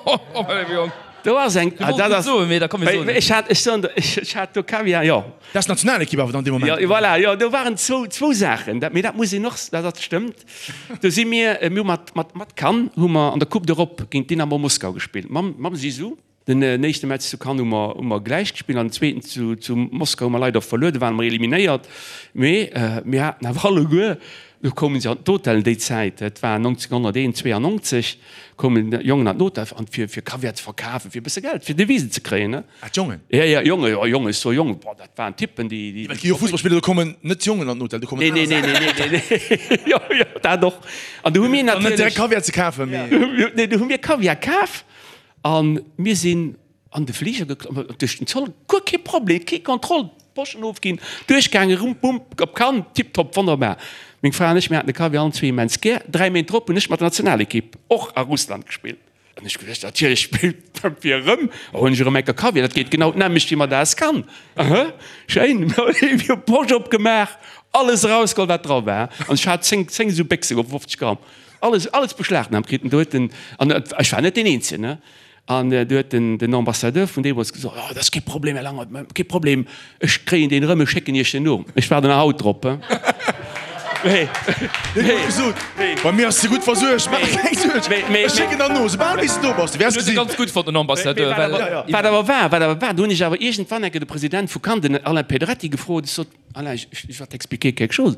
Jong. Do ass eng, ah, dat ass, soen, mee da komm mir soen. Ech hat, ech soen der, ech hat do Kaviar, jo. Dat ass d'Nationalekipp awer dann dee Moment. Jo, voilà, jo, do waren zwou, zwou Saachen, dat, mee dat muss een och, dat, dat stëmmt. Do si mir, mir hu mat, mat, mat Cannes hu mer an der Coupe d'Europe géint Dynamo Moskau gespillt, mam, mam Zizou. Den éischte Match zu Cannes hu mer, hu mer gläich gespillt an den zweeten zu, zu Moskau hu mer leider verluer, do ware mer eliminéiert. Mee mir haten awer alleguer, do koumen se an d'Hotellen déi Zäit, dat war 1991, koumen d'Jongen an d'Hotel an fir, fir Kaviar ze verkafen, fir e bësse Geld, fir Devisen ze kréien, ne. Ah, d'Jongen? Ja, ja, Jongen, jo, Jongen, ech soe Jongen, boah, dat waren Typen, déi, déi. Well et gi jo Fussballspiller, do kommen net d'Jongen an den Hotel, do kommen Nee, nee, nee, nee, nee, nee, jo, jo, dat och. An do hu mir natierlech. Net direkt Kaviar ze kafen, mee. Nee, do hu mir Kaviar kaf a mir sinn an de Fliger geklomm, duerch den Zoll, guer kee Problem, kee Kontroll, d'Poschen ofginn, duerchgaangen, rum, bum, op Cannes, tiptop, wonnerbar. Meng Fra an ech, mir haten de Kaviar allen zwee immens gär. Dräi Méint drop hunn ech mat der Nationalekipp och a Russland gespillt. An ech geduecht, natierlech spillt fir erëm, huelen ech erëm enker Kaviar, dat geet genau d'nämmlecht wéi mat AS Cannes. Aha, schéin, mir hu Posch opgemaach, alles erausgeholl, wat dra war. An ech hat 10, 10 esou Béchse, 50 Gramm. Alles, alles beschlagnahmt kritt. An do huet den, an ech war net deen Eenzegen, ne? An do huet den, den Ambassadeur vun deemools gesot, Oh, dat ass kee Problem, Här Langert, kee Problem, ech kréien deen erëm, ech schécken Iech den no. Ech waarden nach haut drop, he? Mee, mee, gesot, bei mir ass de gutt versuergt, maach der keng Suerg, ech schécken der no, soubal wéi s de do bass, du wäers gesinn. Ganz gutt fonnt, den Ambassadeur, well. Wat awer war, wat awer war, do hunn ech awer iergendwann enke de President vu Cannes, den Alain Pedretti, gefrot, ech sot, Alain, je vais t'expliquer quelque chose.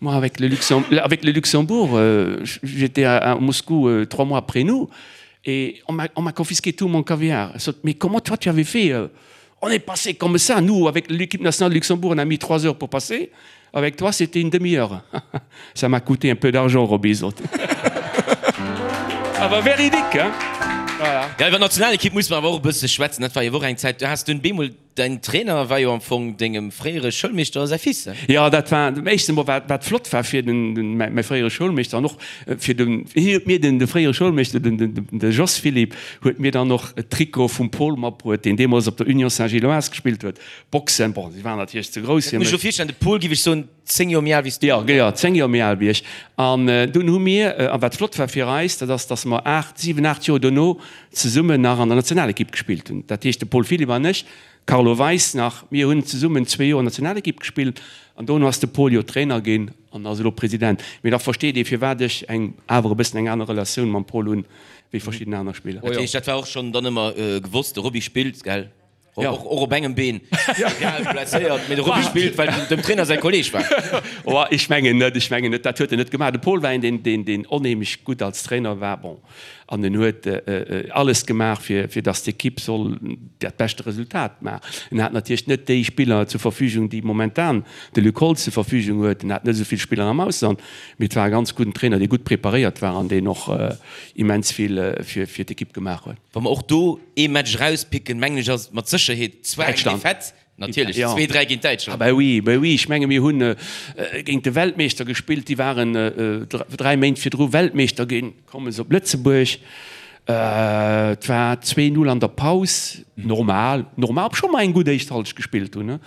Moi, avec le, Luxem avec le Luxembourg, euh, j'étais à, à Moscou euh, trois mois après nous et on m'a confisqué tout mon caviar. Mais comment toi tu avais fait euh, On est passé comme ça. Nous, avec l'équipe nationale de Luxembourg, on a mis trois heures pour passer. Avec toi, c'était une demi-heure. ça m'a coûté un peu d'argent, Robizot. Aber véridique, hein? Voilà. Ja, iwwer d'Nationalekipp musse mer awer och e bësse schwätzen. Dat war jo och eng Zäit, du has dunn bemol Däin Trainer war jo am Fong dengem fréiere Schoulmeeschter säi Fils, ne? Jo, dat war dem éischten Mol, wat wat flott war fir den den mäi mäi fréiere Schoulmeeschter an och fir den hien huet mir den de fréiere Schoulmeeschter den den de Jos Philipp huet mir dann och d'Trikot vum Paul matbruet, deen deemools op der Union Saint-Gilloise gespillt huet. Boxen, bon, si waren natierlech ze grouss fir mech. Muss ech lo virstellen, de Paul, giff ech soen, 10 Joer méi al wéi s du? Jo, jo, 10 Joer méi al wéi ech. An dunn hu mir, a wat flott war fir eis, dat ass, datt mer 8, 7, 8 Joer dono zesummen nach an der Nationalekipp gespillt hunn. Dat heescht, de Paul Philipp an ech, Carlo Weis nach, mir hunn zesummen zwee Joer Nationalekipp gespillt an dono ass de Paul jo Trainer ginn an ass elo President. Mee da versteet ee firwat ech eng awer e bëssen eng aner Relatioun mam Paul hunn wéi verschidden aner Spiller. Dat heescht, dat war och schonn dann ëmmer gewosst, de Roby spillt, gell? Ja. Och, och op engem Been. Egal, blesséiert, mee de Roby spillt, well dem Trainer säi Kolleeg war. Oh, ech mengen net, ech mengen net, dat huet en net gemaach. De Paul war een, deen, deen, deen onheemlech gutt als Trainer war. Bon, an en huet alles gemaach, fir, fir datt d'Ekipp soll dat beschte Resultat maachen. En hat natierlech net déi Spiller zur Verfügung, déi momentan de Luc Holtz zur Verfügung huet. En hat net esou vill Spiller am Ausland, mee et war e ganz gudden Trainer, dee gutt preparéiert war an deen och immens vill fir, fir d'Ekipp gemaach huet. Wa mer och do ee Match erauspicken, mengen ech, ass et mat Sécherheet zwar eng Defaite, natierlech, 2, 3 géint Däitschland. Ah ben oui, ben oui, ech menge mir hunn géint de Weltmeeschter gespillt, déi waren 3 Méint virdru Weltmeeschter ginn, komme se op Lëtzebuerg, et war 2, 0 an der Paus, normal, normal, obscho mer eng gutt éischt Halschent gespillt hunn,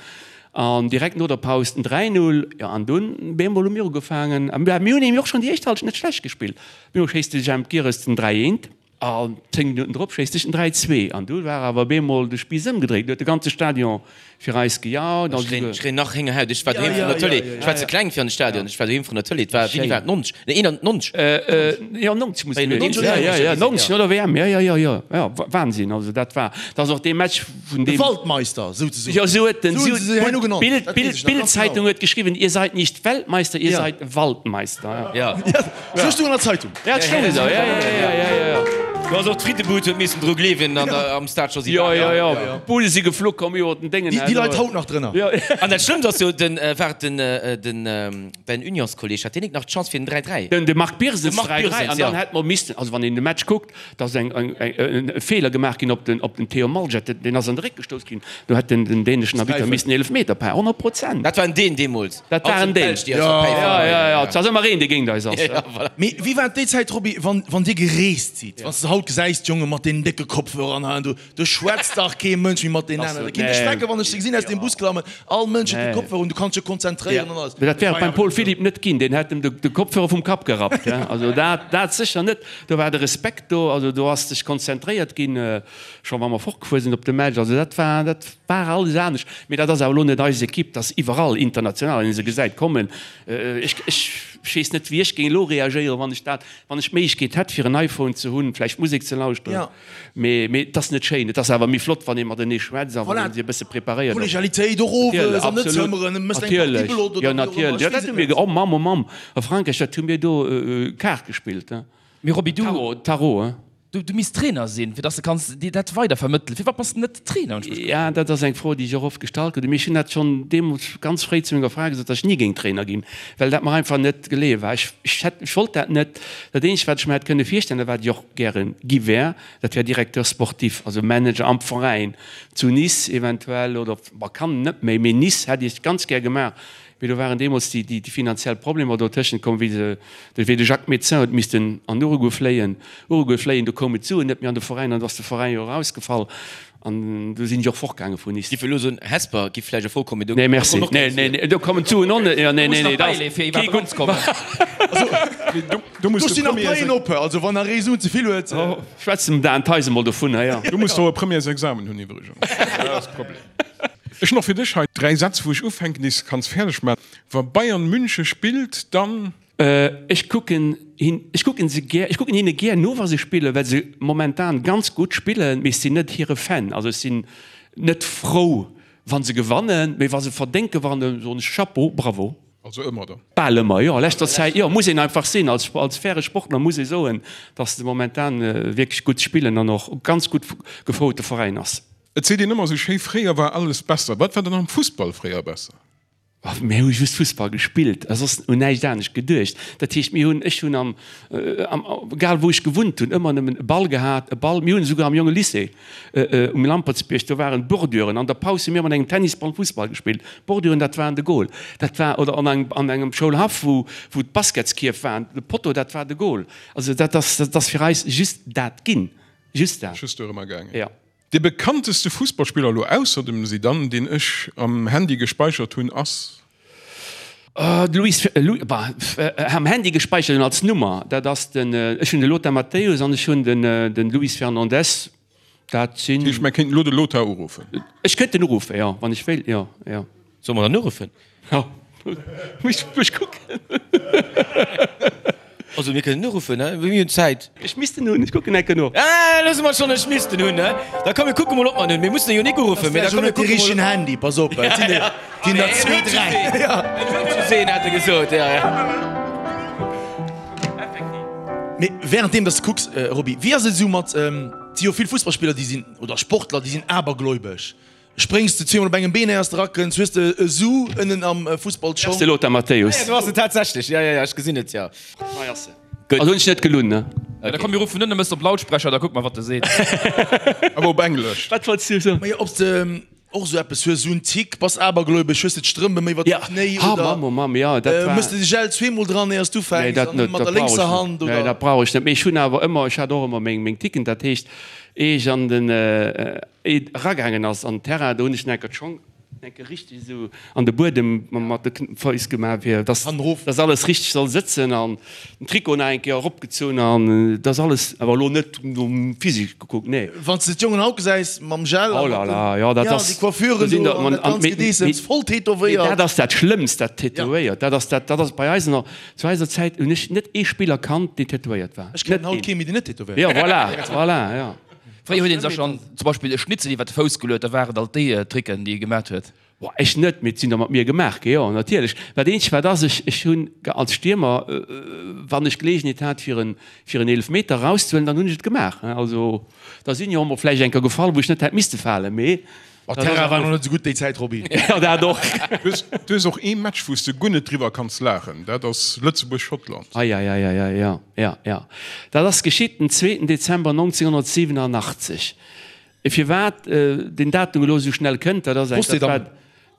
an direkt no der Paus den 3, 0, jo an dunn bemol hu mir ugefaangen, a mir hunn nämlech och schonn déi éischt Halschent net schlecht gespillt, bemol schéisst de Jemp Girres den 3, 1. An 10 Minutten drop schéisst ech den 3, 2 an du war awer beemol de Spiiss ëmgedréit. Du huet de ganze Stadion fir eis gejaut. Ech kréien, ech kréien nach Héngerhaut. Ech war doheem vrun der Tëlee. Ech war ze kleng fir an de Stadion. Ech war doheem vrun der Tëlee. Et war, wéini war et? 90? Nee, 91? Jo, 90 muss et gewiescht sinn. Jo, jo, jo, 90 no der WM. Jo, jo, jo, jo, jo, Wahnsinn. Also dat war, dat ass och dee Match vun deem. De Waldmeister, souzesoen. Jo, esou huet den, esou hunn se se herno genannt. D'Bild, d'Bild, d'Bild-Zeitung huet geschriwwen, Ihr seid nicht Weltmeister, ihr seid Waldmeister. Jo. Sou stoung an der Zeitung. Ja, et stoung esou, ja, ja, ja, ja, ja, ja. Du ass och d'Frittebud huet missen dru gleewen an der, am Stade Josy Jo, jo, jo, d'Bude si geflu komm iwwer den Déngen. Déi leit haut nach drënner. Jo. An dat Schlëmmst ass jo, den, war et den, den, däin Unionskolleg, hat deen nik nach d'Chance fir den 3, 3? Den, de Marc Birsens, De Marc 3, 3, Birsens, an ja. dann hätt mer missten, also wann een de Match kuckt, da ass eng, eng, eng, e Feeler gemaach ginn op den, op den Theo Malget, deen ass an de Réck gestouss ginn, do hätt den, den däneschen Arbitter missen Eelefmeter paen, 100 Prozent. Dat war en Dän deemools. Dat war en Deen. Jo, jo, jo, et ass ëmmer een, dee géint eis ass. Mee wéi war et déi Zäit, Roby, wann, wann Dir gereest sidd? Wann s de haut gesäis, d'Jonge mat deenen décke Kopfhörer an hei an do, do schwätzt dach kee Mënsch méi mat deenen aneren. Da kinnt ech schrecken, wann ech se gesinn aus dem Bus klammen, all Mënsch huet de Kopfhörer un, du kanns dech konzentréieren an alles. Mee dat wär et beim Paul Philipp net ginn, deen hätt em de Kopfhörer vum Kapp gerappt. Also dat, dat sécher net. Do war de Respekt do, also do ass sech konzentréiert ginn. Scho wa mer fortgefuer sinn op de Match, also dat war, dat war alles anescht. Mee dat ass awer elo net eis Ekipp, dat ass iwwerall international, wann ee se gesäit kommen. Ech, ech weess net, wéi ech géing elo reagéieren, wann ech dat, wann ech d'Méiglechkeet hätt, fir en iPhone ze hunn, vläicht Musek ze lauschteren. Mee, mee et ass net schéin. Et ass awer méi flott, wann ee matenee schwätzt a wann ee sech e bësse preparéiert. Kollegialitéit och owes an net zëmmeren, et mécht eng Partie Bellot oder Absolut, wéi jo och ëmmer, natierlech. ech Jo weess dat hu et mir, net. oh Mamm, oh Mamm, a Frankräich, dat hu mir do Kaart gespillt. Mee Roby, du. Tarot, Tarot, hein. Du, du misst Trainer sinn, fir dass de kanns dir dat weider vermëttelen. Firwat bass de net Trainer? Hunn ech mech gefrot. Ja, dat ass eng Fro, déi ech och oft gestallt krut. Mee ech hunn dat schonn deemools ganz fréi zu menger Fra gesot, dass ech ni géing Trainer ginn, well dat mer einfach net geleeë war. Ech, ech hätt, ech wollt dat net. Dat eenzegt, wat ech mer hätt kënne virstellen a wat ech och gäre gi wär, dat wär Directeur sportif, also Manager am Veräin, zu Nice eventuell oder, bon, Cannes net méi, mee Nice hätt ech ganz gär gemaach. Mee do waren deemools déi, déi finanziell Problemer dotëschent komm, wéi se, wéi de Jacques Médecin huet missten an Uruguay fléien, Uruguay fléien, do koumen d'Suen net méi an de Veräin an do ass de Veräin jo erausgefall an do sinn ech och fortgaange vun Nice. Giff elo soen, Hesper giff vläicht a Fro kommen, mee do Nee, merci. kommen och Nee, keng nee, Suen. nee, do kommen d'Suen och net. Jo, nee, Do muss nee, nach nee, da ass bäileeën, fir kee iwwerhaapt gutt. eranzekommen. Do muss Do de stinn nach Premières Paien op, also wann nach ee Suen ze vill huet. Schwätz dem Dan Theis emol dovunner, jo. Du muss do e Premièresexamen hunn iwwregens. Dat ass de Problem. Ech hunn och fir dech hei 3 Sätz wou ech ufänken, déi s de kanns fäerdeg maachen. Wa Bayern München spillt, dann. Ech kucken hin, ech kucken se gär, ech kucken hinne gär no wa se spillen, well se momentan ganz gutt spillen, mee ech sinn net hire Fan. Also ech sinn net frou wa se gewannen, mee wa se verdéngt gewannen, soen ech Chapeau, bravo. Also ëmmer dann? Bal ëmmer, jo. A leschter Zäit, jo, muss een einfach sinn. Als, als faire Sportler muss ee soen, datt se momentan wierklech gutt spillen an och ganz gutt gefouerte Veräin ass. Et seet een ëmmer esou schéi, fréier war alles besser. Wat war dann am Fussball fréier besser? Mir hu just Fussball gespillt a soss un näischt anescht geduecht. Dat heescht, mir hunn, ech hunn am, am, egal wou ech gewunnt hunn, ëmmer nëmmen e Ball gehat, e Ball. Mir hunn esouguer am Jonge Lycée um Lampertsbierg, do waren Borduren. An der Paus hu mir mat engem Tennisball Fussball gespillt. Borduren, dat waren de Goal. Dat war, oder an engem, an engem Schoulhaff, wou, wou d'Basketskierf waren, de Potto, dat war de Goal. Also dat ass, dat ass fir eis just dat ginn. Just dat. Just dorëmmer gaangen. Jo. Dee bekannteste Fussballspiller elo ausser dem Zidane, deen ech am Handy gespeichert hunn, ass? De Luis, bah, am Handy gespeichert hunn als Nummer, dat ass den, ech hunn de Lothar Matthäus an ech hunn den Luis Fernandez, dat sinn. Dat heescht, mer kéinten elo de Lothar uruffen? Ech kéint en uruffen, jo, wann ech wéilt, jo, jo. Solle mer dann uruffen? Jo, muss ech kucken. Also mir kënnen uruffen, he? Mir hunn Zäit. Ech misst en hunn, ech kucken enke no. Ah, loosse mer schonn, ech misst en hunn, he? Da komm mir kucke mol, ob mer en hunn. Mir mussen e jo nik uruffen, mee da komm mir kucke mol. De richtegen Handy, pass op, et sinn der, ginn der zwee, dräi. En huet just een, hat e gesot, jo, jo. Effektiv. Mee währenddeem dass de kucks, Roby, wéi ass et esou mat, et si jo vill Fussballspiller, déi sinn, oder Sportler, déi sinn abergläubesch. Spréngs de zweemol op engem Been éiers de rakënns, hues de e Su ënnen am Fussballschong. Ass de Lothar Matthäus. Ah jo, do ass en tatsächlech. Jo, jo, jo, ech gesinn et, jo. Hei ass en. Gutt. Also hunn ech net gelunn, ne? Da komm mir ruffen un, da mëss de op Lautsprecher, da kucke mer wat e seet. Awer op Englesch. Wat wollts du soen? Majo, ob s de och esou eppes hues, esou en Tick, bass abergläubesch, hues de d'Strëmp ëm iwwer de Knéi Ja, oder ha Mamm, oh Mamm, jo, dat war. Mëss de de Gel zweemol dran éiers du ufänks Nee, dat an net, mat dat der brauch ech lénkser net. Hand Nee, oder? dat brauch ech net. Mee ech hunn awer ëmmer, ech hat och ëmmer meng, meng Ticken, dat heescht, eeh ech an den, Et eragaangen ass an den Terrain, do hunn ech enker d'Schong enke richteg esou an de Buedem mat de Fouss gemaach, fir dass dass alles richteg soll sëtzen an den Trikot nach eng Kéier eropgezunn an dass alles, awer elo net nom Physique gekuckt, nee. Wann s de d'Jongen haut gesäis mam Gel Oh a là mat là, den, jo, dat ja, ass, déi Coiffuren do sinn do der, an man, dat an ganzt mee, Gedeessems, mee, voll mee tätowéiert. dat ass dat Schlëmmst, dat Tätowéiert, dat ass dat, dat ass bei eis nach, zu eiser Zäit hunn ech net ee Spiller kannt, deen tätowéiert war, Ech kennen net haut een. kee méi, deen net tätowéiert Jo, voilà, voilà, jo. Fréier huet een sech schonn zum Beispill e Schnitzel iwwer de Fouss geluet, da waren et alt déi Tricken, déi ee gemat huet. Boah, ech net, mee et sinn der mat mir gemaach gi, jo, natierlech. Dat eenzegt wat ass, ech, ech hunn als Stiermer, wann ech Geleegenheet hat fir en, fir en Eelefmeter erauszehuelen, dann hunn ech et gemaach. Also da sinn jo och mol vläicht eng Kéier gefall, wou ech net hätt misste falen, mee Oh, dat ass Terrain war einfach. nach net esou gutt déi Zäit, Roby. Jo, dat och. Du hues, du hues och ee Match, wou s de guer net driwwer kanns laachen, dat ass Lëtzebuerg-Schottland. Eieieiei, jo, jo, jo. Dat ass geschitt den zweeten Dezember 1987. Firwat deen Datum elo esou schnell kënnt, dat ass eng, dat war,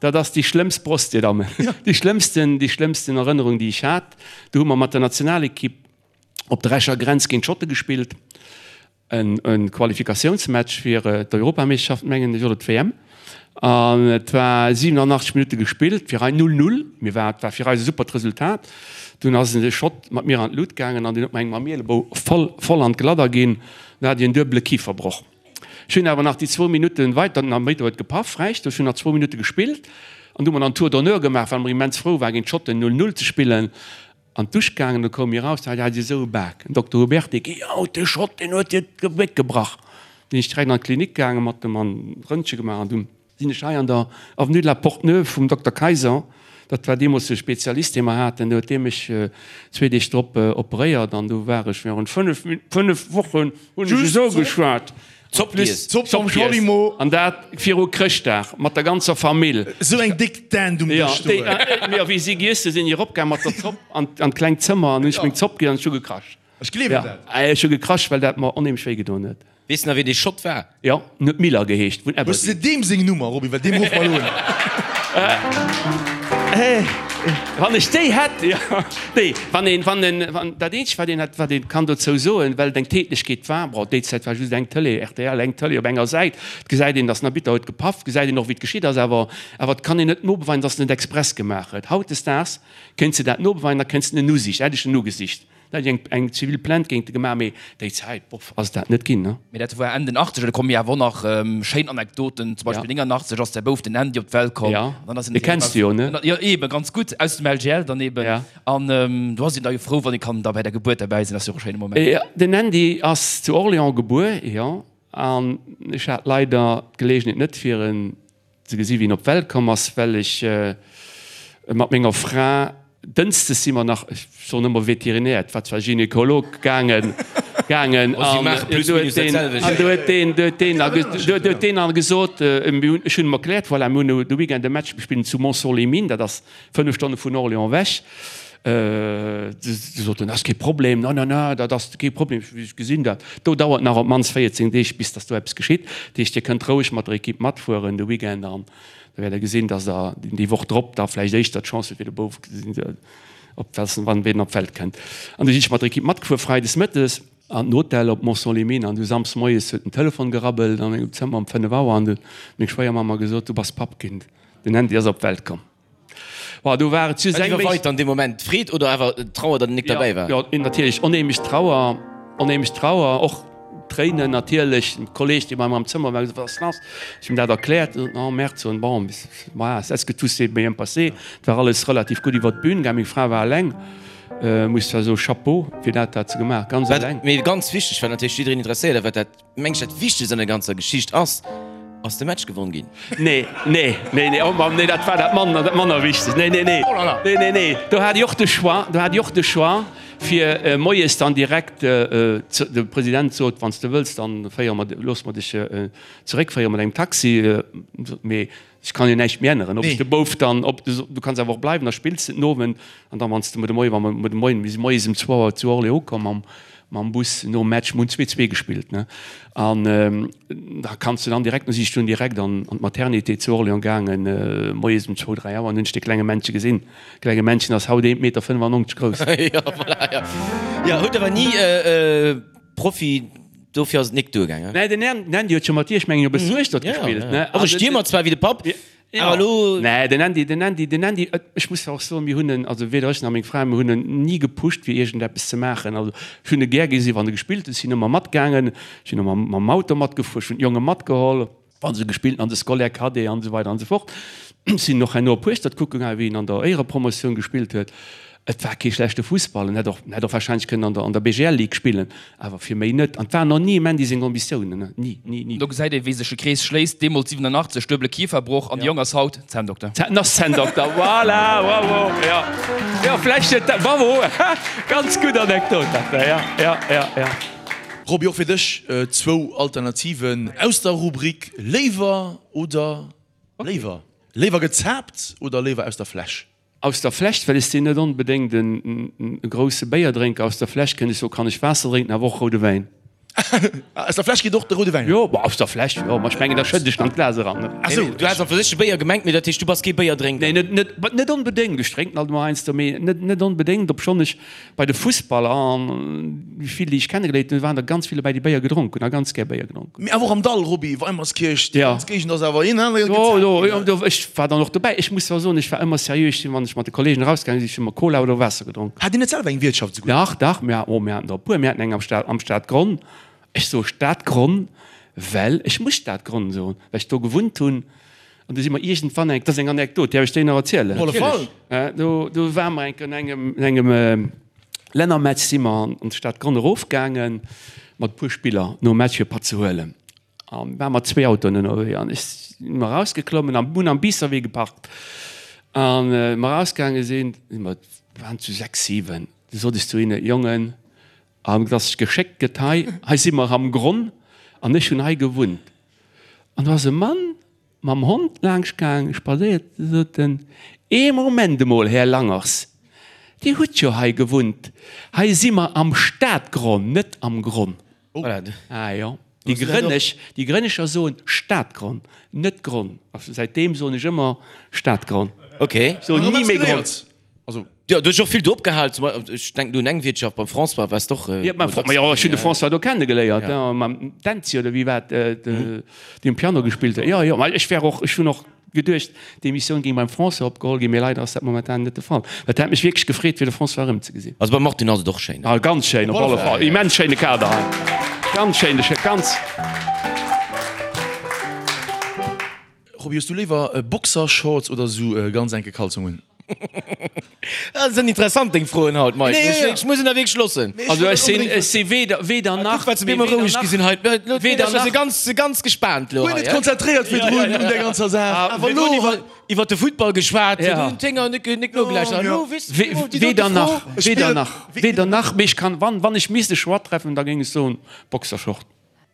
dat ass déi schlëmmst, Prost, Dir Dammen, déi schlëmmsten, déi schlëmmsten Erënnerung, déi ech hat. Do hu mer mat der Nationalekipp op der Escher Grenz géint d'Schotte gespillt. En Qualifikatiounsmatch fir d'Europameeschterschaft, mengen ech, oder d'WM. An et war 87 Minutte gespillt, fir eis 0, 0. Mir war, et war fir eis e supert Resultat. Dunn ass de Schott mat mir an d'Lut gaangen an deen huet mer eng mam Ielebou voll, voll an d'Gladder ginn. Dann hat ech en duebele Kiferbroch. Ech hunn awer nach déi zwou Minutte weiter, den Arbitter huet gepaff, Recht, ech hunn nach zwou Minutte gespillt an du hu mer dann Tour d'honneur gemaach, well mer immens frou waren, géint d'Schotten 0, 0 ze spillen. An d'Dusch gaangen, du koum mir raus, da hat si esou e Bak. Den Dokter Huberty, Géi haut, de Schott, deen huet dir d'Gebéck gebrach. Sinn ech direkt an d'Klinik gaangen, mat dem an Röntge gemaach an dunn sinn ech hei an der Avenue de la Porte Neuve vum Dokter Kayser, dat war deemools de Spezialist, dee mer haten, do huet dee mech zwee Deeg drop operéiert an du war ech virun fënnef, fënnef Wochen hunn ech esou geschwat. Zopp giess. Zopp mam Schwalimo. An dat viru Chrëschtdag mat der ganzer Famill. Esou eng déck Dent um Dësch stoen. Jo, wéi si giess hu sinn ech eropgaang mat der Zopp an d'klengt Zëmmer an hunn ech meng Zopp giess an ech hu gekrasch. Ech gleewen dat. Ech hu gekrasch, well dat mer onheemlech wéi gedoen huet. Weess nach wéi dee Schott war? Jo, en huet Miller geheescht, vun Hues de Aberdeen. deem seng Nummer, Roby, well deem ruffe mer elo un. Wann ech déi hätt, jo. Nee, wann een, wann en, wann, dat eenzegt, wat een hätt, wat ee kann dozou soen, well et eng Tätlechkeet war, bon, déi Zäit war just eng Tëlee, rtl, eng Tëlee op enger Säit, et gesäit een, datt den Arbitter huet gepaff, gesäit een och, wéi et geschitt ass, awer, awer et kann een net nobeweisen, datt en et express gemaach huet. Hautdesdaags kéints de dat nobeweisen, da kéints de en usicht, hätt ech en ugesicht. Da hätt ech eng, eng zivil Plainte géint e gemaach, mee déi Zäit, boff, ass et dat net ginn, ne? Mee dat war Enn den Achtzeger, do komme jo awer och nach schéin Anekdoten. Zum Beispill 89 ass däi Bouf, den Andy, op d'Welt komm. Ja, dee kenns de jo, ne? Jo, eeben, ganz gutt, aus dem LGL dann eeben. Ja. An do ass een da jo frou, wann ee kann da bei der Gebuert derbäi sinn, ass jo och e schéine Moment. Jo, den Andy ass zu Orléans gebuer, jo, an ech hat leider d'Geleegenheet net, fir en ze gesi wéi en op d'Welt komm ass, well ech mat menger Fra, dënschdes si mer nach, ech soen ëmmer Veterinär, et war zwar Gynekolog, gaangen, gaangen an do huet deen, an do huet deen, do huet deen da, do huet deen da gesot, mir hunn, ech hunn em erkläert, voilà, mir hunn de Weekend e Match, mir spillen zu Montceau-les-Mines, dat ass 5 Stonne vun Orléans ewech. Du sot en, ass kee Problem, na, na, na, dat ass kee Problem, ech gesinn dat. Do dauert nach op d'mannst 14 Deeg, bis datt do eppes geschitt. Dat heescht, Dir kënnt roueg mat der Ekipp matfueren de Weekend an da wäert Der gesinn, datt Der déi Woch drop da vläicht éischter d'Chance hutt, fir de Bouf op wann ween op d'Welt kënnt. An du sinn ech mat der Ekipp matgefuer freides mëttes an den Hotel op Montceau-les-Mines an du samsdes moies huet den Telefon gerabbelt an engem Zëmmer um 5 Auer an du huet meng Schwéiermamm mer gesot, du bass Papp ginn, den Andy ass op d'Welt komm. Bon, do war et just Wat eng méi. iwwerweit dann dee Moment? D'Freed oder awer d'Trauer, datt en nik derbäi war? Jo, natierlech onheemlech Trauer, onheemlech Trauer, och Tréinen natierlech. En Kolleeg, dee bei mer am Zëmmer war, huet gesot, Wat ass lass? Ech hunn him dat erkläert. En sot, Oh merde, sot en, bon, voilà, est-ce que tout s'est bien passé? Et war alles relativ gutt iwwer d'Bün gaang. Meng Fra war eleng, muss zwar soen, Chapeau fir dat, wat se gemaach, ganz eleng. Mee ganz wichteg, wat natierlech jiddereen interesséiert a wat dat Mengs dat wichtegst an der ganzer Geschicht ass, ass de Match gewonn ginn? Nee, nee, nee, nee, oh Mann, nee, dat war dat manner, dat manner wichtegst. Nee, nee, nee, nee, nee, nee, do hat ech och de Choix, do hat ech och de Choix, fir moies dann direkt, de President sot, wann s de wëlls, dann féiere mer, loosse mer dech zeréckféiere mat engem Taxi, mee Ech kann jo näischt méi änneren, ob ech de Bouf dann, ob du, du kanns awer och bleiwen, da spills de den Owend an dann, wann s de muer de Moien, wa mer muer de Moien, mir si moies ëm zwou Auer zu Orléans ukomm mam, mam Bus nom Match, mir hunn 2, 2 gespillt, ne, an da kanns de dann direkt, du si ech dunn direkt an, an d'Maternité zu Orléans gaangen, moies ëm zwou, dräi Auer an hunn ech de klenge Männche gesinn. De klenge Männchen ass haut 1,95 Meter grouss. Jo, voilà, jo. Jo, huet awer ni Profi, dofir ass et nik duergaangen. Nee, den Andy huet jo mat dir, ech mengen, jo bis Hueschtert gespillt, ne? Och e Stiermer zwar wéi de Papp, awer elo. Nee, den Andy, den Andy, den Andy, ech muss och soen, mir hunn en, also weder ech nach meng Fra, mir hunn en ni gepusht fir iergendeppes ze maachen. Also ech hunn e gär gesi wann e gespillt huet, ech sinn ëmmer matgaangen, ech sinn och mam Auto matgefuer, ech hunn d'Jonge matgeholl. Wa se gespillt an de Scolaire Cadet an esou weider an esou fort. Sinn och herno op Hueschtert kucke gaangen, wéi en an der Éierepromotioun gespillt huet. Et war kee schlechte Fussball. En hätt och, en hätt och wahrscheinlech kënnen an der, an der BGL Ligue spillen, awer fir méi net. An et waren och ni em Andy seng Ambitiounen, ne, ni, ni, ni. Do gesäit ee wéi sech e Krees schléisst, deemools 87, duebele Kiferbroch an de Jong ass haut Zänndokter. Zänn, ass Zänndokter, voilà, bravo, jo, jo, vläicht huet dat, bravo, ganz gutt Anekdot dat da, ja, ja, ja, ja. Roby, och fir dech zwou Alternativen aus der Rubrik Léiwer oder léiwer. Léiwer gezaapt oder léiwer aus der Fläsch? Aus der Fläsch, well ech sinn net onbedéngt e grousse Béierdrénker. Aus der Fläsch kënnt ech soen, kann ech Waasser drénken, awer och roude Wäin. Aus der Fläsch geet och de roude Wäin? Jo, aus der Fläsch, jo, ma ech mengen, da schëdden ech an d'Glas eran. Ah sou, du has an fir sech de Béier gemengt, mee dat heescht, du bass kee Béierdrénker? Nee, net, net, net onbedéngt. Ech drénken alt emol heiansdo, mee net, net onbedéngt, obschonn ech Bei de Fussballer, an déi vill, déi ech kennegeléiert hunn, waren der ganz vill dobäi, déi Béier gedronk hunn a ganz gär Béier gedronk hunn. Mee awer och am Dall, Roby, Weimerskirch, déi ganz Géigend ass awer een anere Jo, jo, jo, do, ech war dann och dobäi. Ech muss zwar soen, ech war ëmmer seriö, ech sinn, wann ech mat de Kollegen erausgaange sinn, ech hunn ëmmer Cola oder Waasser gedronk. Hat Dir net selwer eng Wiertschaft esouguer? Dach, dach, mir, oh, mir haten der e puer. Mir haten eng am Stad, am Stadgronn. Ech soe Stadgronn, well ech muss Stadgronn soen, well ech do gewunnt hunn. An du si mer iergendwann eng, dat ass eng Anekdot, däerf ech déi nach erzielen? Op alle Fall! Do, do ware mer eng Kéier an engem, an engem Lännermatch si mer an d'Stad Gronn erofgaange mat e puer Spiller nom Match fir e Patt ze huelen. A ware mat zwee Autoen ënnerwee an ech si mer erausgeklommen an hunn am Biisserwee geparkt. An mer erausgaange sinn, si mer, waren zu 6, 7, du sot ech zu hinne, Jongen, an et ass geschéckt gëtt hei, hei si mer am Gronn an ech hunn hei gewunnt. An do ass e Mann mam Hond laangscht gaang, spadséiert, du sot en, Ee Moment emol, Här Langers, Dir hutt jo hei gewunnt, hei si mer am Stadgronn, net am Gronn. Ah jo, déi Grënnesch, déi Grënnescher soen Stadgronn, net Gronn. A säitdeem soen ech ëmmer Stadgronn. Ok. Ech soen ni méi Gronn. Also. Jo, du hues och vill do opgehal, zum Beispill, ech denken do un eng Wiertschaft beim François, waars de och. Jo, beim François, jo, ech hunn de François do kennegeléiert, jo, mam Dänzi oder wéi war et, dee um Piano gespillt huet. Jo, jo, ma ech wär och, ech hunn och geduecht, d'Emissioun géing beim François opgeholl ginn, mee leider ass dat momentan net de Fall. Dat hätt mech wierklech gefreet, fir de François erëmzegesinn. Also beim Martin ass et och schéin. Ah, ganz schéin, op alle Fall. Immens schéine Kader hei. Ganz schéine, ganz. Roby, hues du léiwer Boxershorts oder sou ganz enke Kalzongen? Dat sinn interessant deng Froen haut, Mike. Nee, ja, ja. Ech muss en der wierklech loossen. Also ech sinn, ech si weder, weder nach. Kuck, wat se mir emol roueg gi sinn hei. Weder nach. Si ganz, ganz gespaant lo hei. Guer net konzentréiert virdrun un der ganzer Saach. Awer elo hei. Iwwer de Futtball geschwat, hunn d'Hénger net, net nogelauschtert. Elo weess de déi dote Weder nach, weder nach, weder nach. Mee ech kann, wann, wann ech misst e Choix treffen, da géing ech soen Boxershort.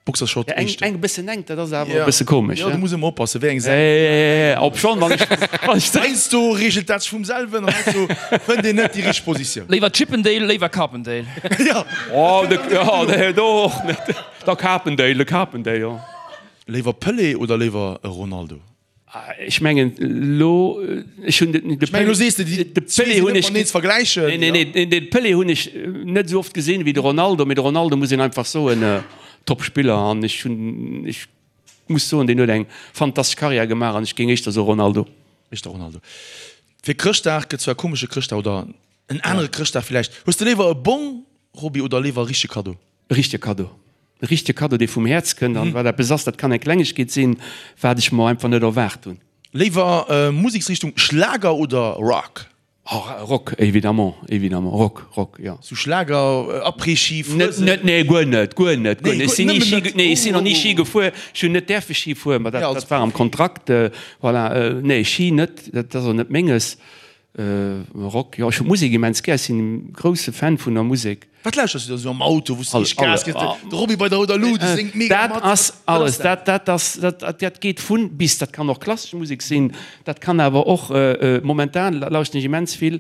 Boxershort Ja, eng, eng e bëssen enk, dat ass awer e bësse komesch. Jo, du muss ëmmer oppassen, wéi eng Säit. Ja, ja, ja, obschonn, wann ech, wann ech. Heiansdo reegelt dat sech vum selwen an heiansdo fënnt een net déi richteg Positioun. Léiwer Chippendale, léiwer Carpendale. Jo. Oh, de, jo, de, do och net. Da Carpendale, de Carpendale, jo. Léiwer Pelé oder léiwer Ronaldo? Ech mengen elo, ech hunn de Ech mengen, elo sees de, déi de Pelé hunn ech net vergläichen. Nee, nee, nee, de Pelé hunn ech net esou oft gesinn wéi de Ronaldo, mee de Ronaldo muss een einfach soen, Top Spiller an ech hunn, ech muss soen, deen huet eng fantastesch Karriär gemaach an ech géing éischter soe Ronaldo. Éischter Ronaldo. Fir Chrëschtdag gëtt zwar e komesche Chrëschtdag oder en anere Chrëschtdag villäicht. Hues de léiwer e Bong, Roby, oder léiwer e richtege Kaddo? E richtege Kaddo. E richtege Kaddo, dee vum Häerz kënnt an wat eppes ass, dat kann eng Klengegkeet sinn, wat ech mer einfach net erwaart hunn. Léiwer Museksrichtung Schlager oder Rock? Oh, Rock, évidemment, évidemment, Rock, Rock, jo. Sou Schlager, Après-Ski, Net, Fuesen? net, nee, guer net, guer net, guer Nee, net. Ech guer, sinn ni nëmmen Ski, net. nee, ech sinn Oh, nach ni oh, Ski oh. gefuer, ech hunn net däerfe Ski fueren, ma dat, Ja, als dat war am Profi. Kontrakt, voilà, nee, Ski net, dat ass och net menges. Rock, jo ech hu Musek immens gär, ech sinn e grousse Fan vun der Musek. Wat lauschters du da sou am Auto, wou s de richteg Gas gëss? De Roby bei der rouder Luut, dee séngt mega Dat mat. ass alles, dat dat ass, dat dat geet vun bis. Dat kann och klassesch Musek sinn, dat kann awer och, momentan lauschten ech immens vill,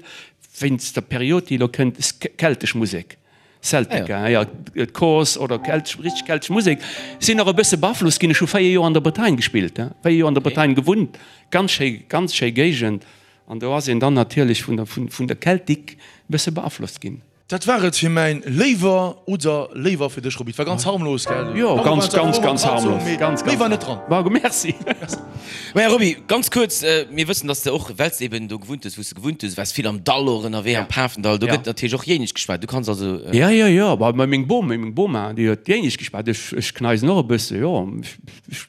wéinst der Period déi elo kënnt, keltesch Musek. Celtica, jo, d'Corse oder keltesch, richteg keltesch Musek. Sinn och e bësse beaflosst ginn. Ech hu 4 Joer an der Bretagne gespillt, 4 Joer an der Bretagne gewunnt, ganz schéi, ganz schéi Géigend. An do ass een dann natierlech vun der, vun der Keltik e bësse beaflosst ginn. Dat war et fir mäin Léiwer oder Léiwer fir dech, Roby. Et war ganz harmlos, gell? Jo, ganz, ganz, ganz harmlos. Ganz, ganz. Méi war net dran. Margot, merci. Maja Roby, ganz kuerz, mir wëssen, dass de och, well s de eben do gewunnt hues, wou s de gewunnt hues, waars vill am Dall och ënnerwee, am Pafendall, do gëtt natierlech och Jéinesch geschwat. Du kanns also. Jo, jo, jo, ma meng Bom, meng Boma, déi huet Jéinesch geschwat. Ech, ech kneisen och e bësse, jo.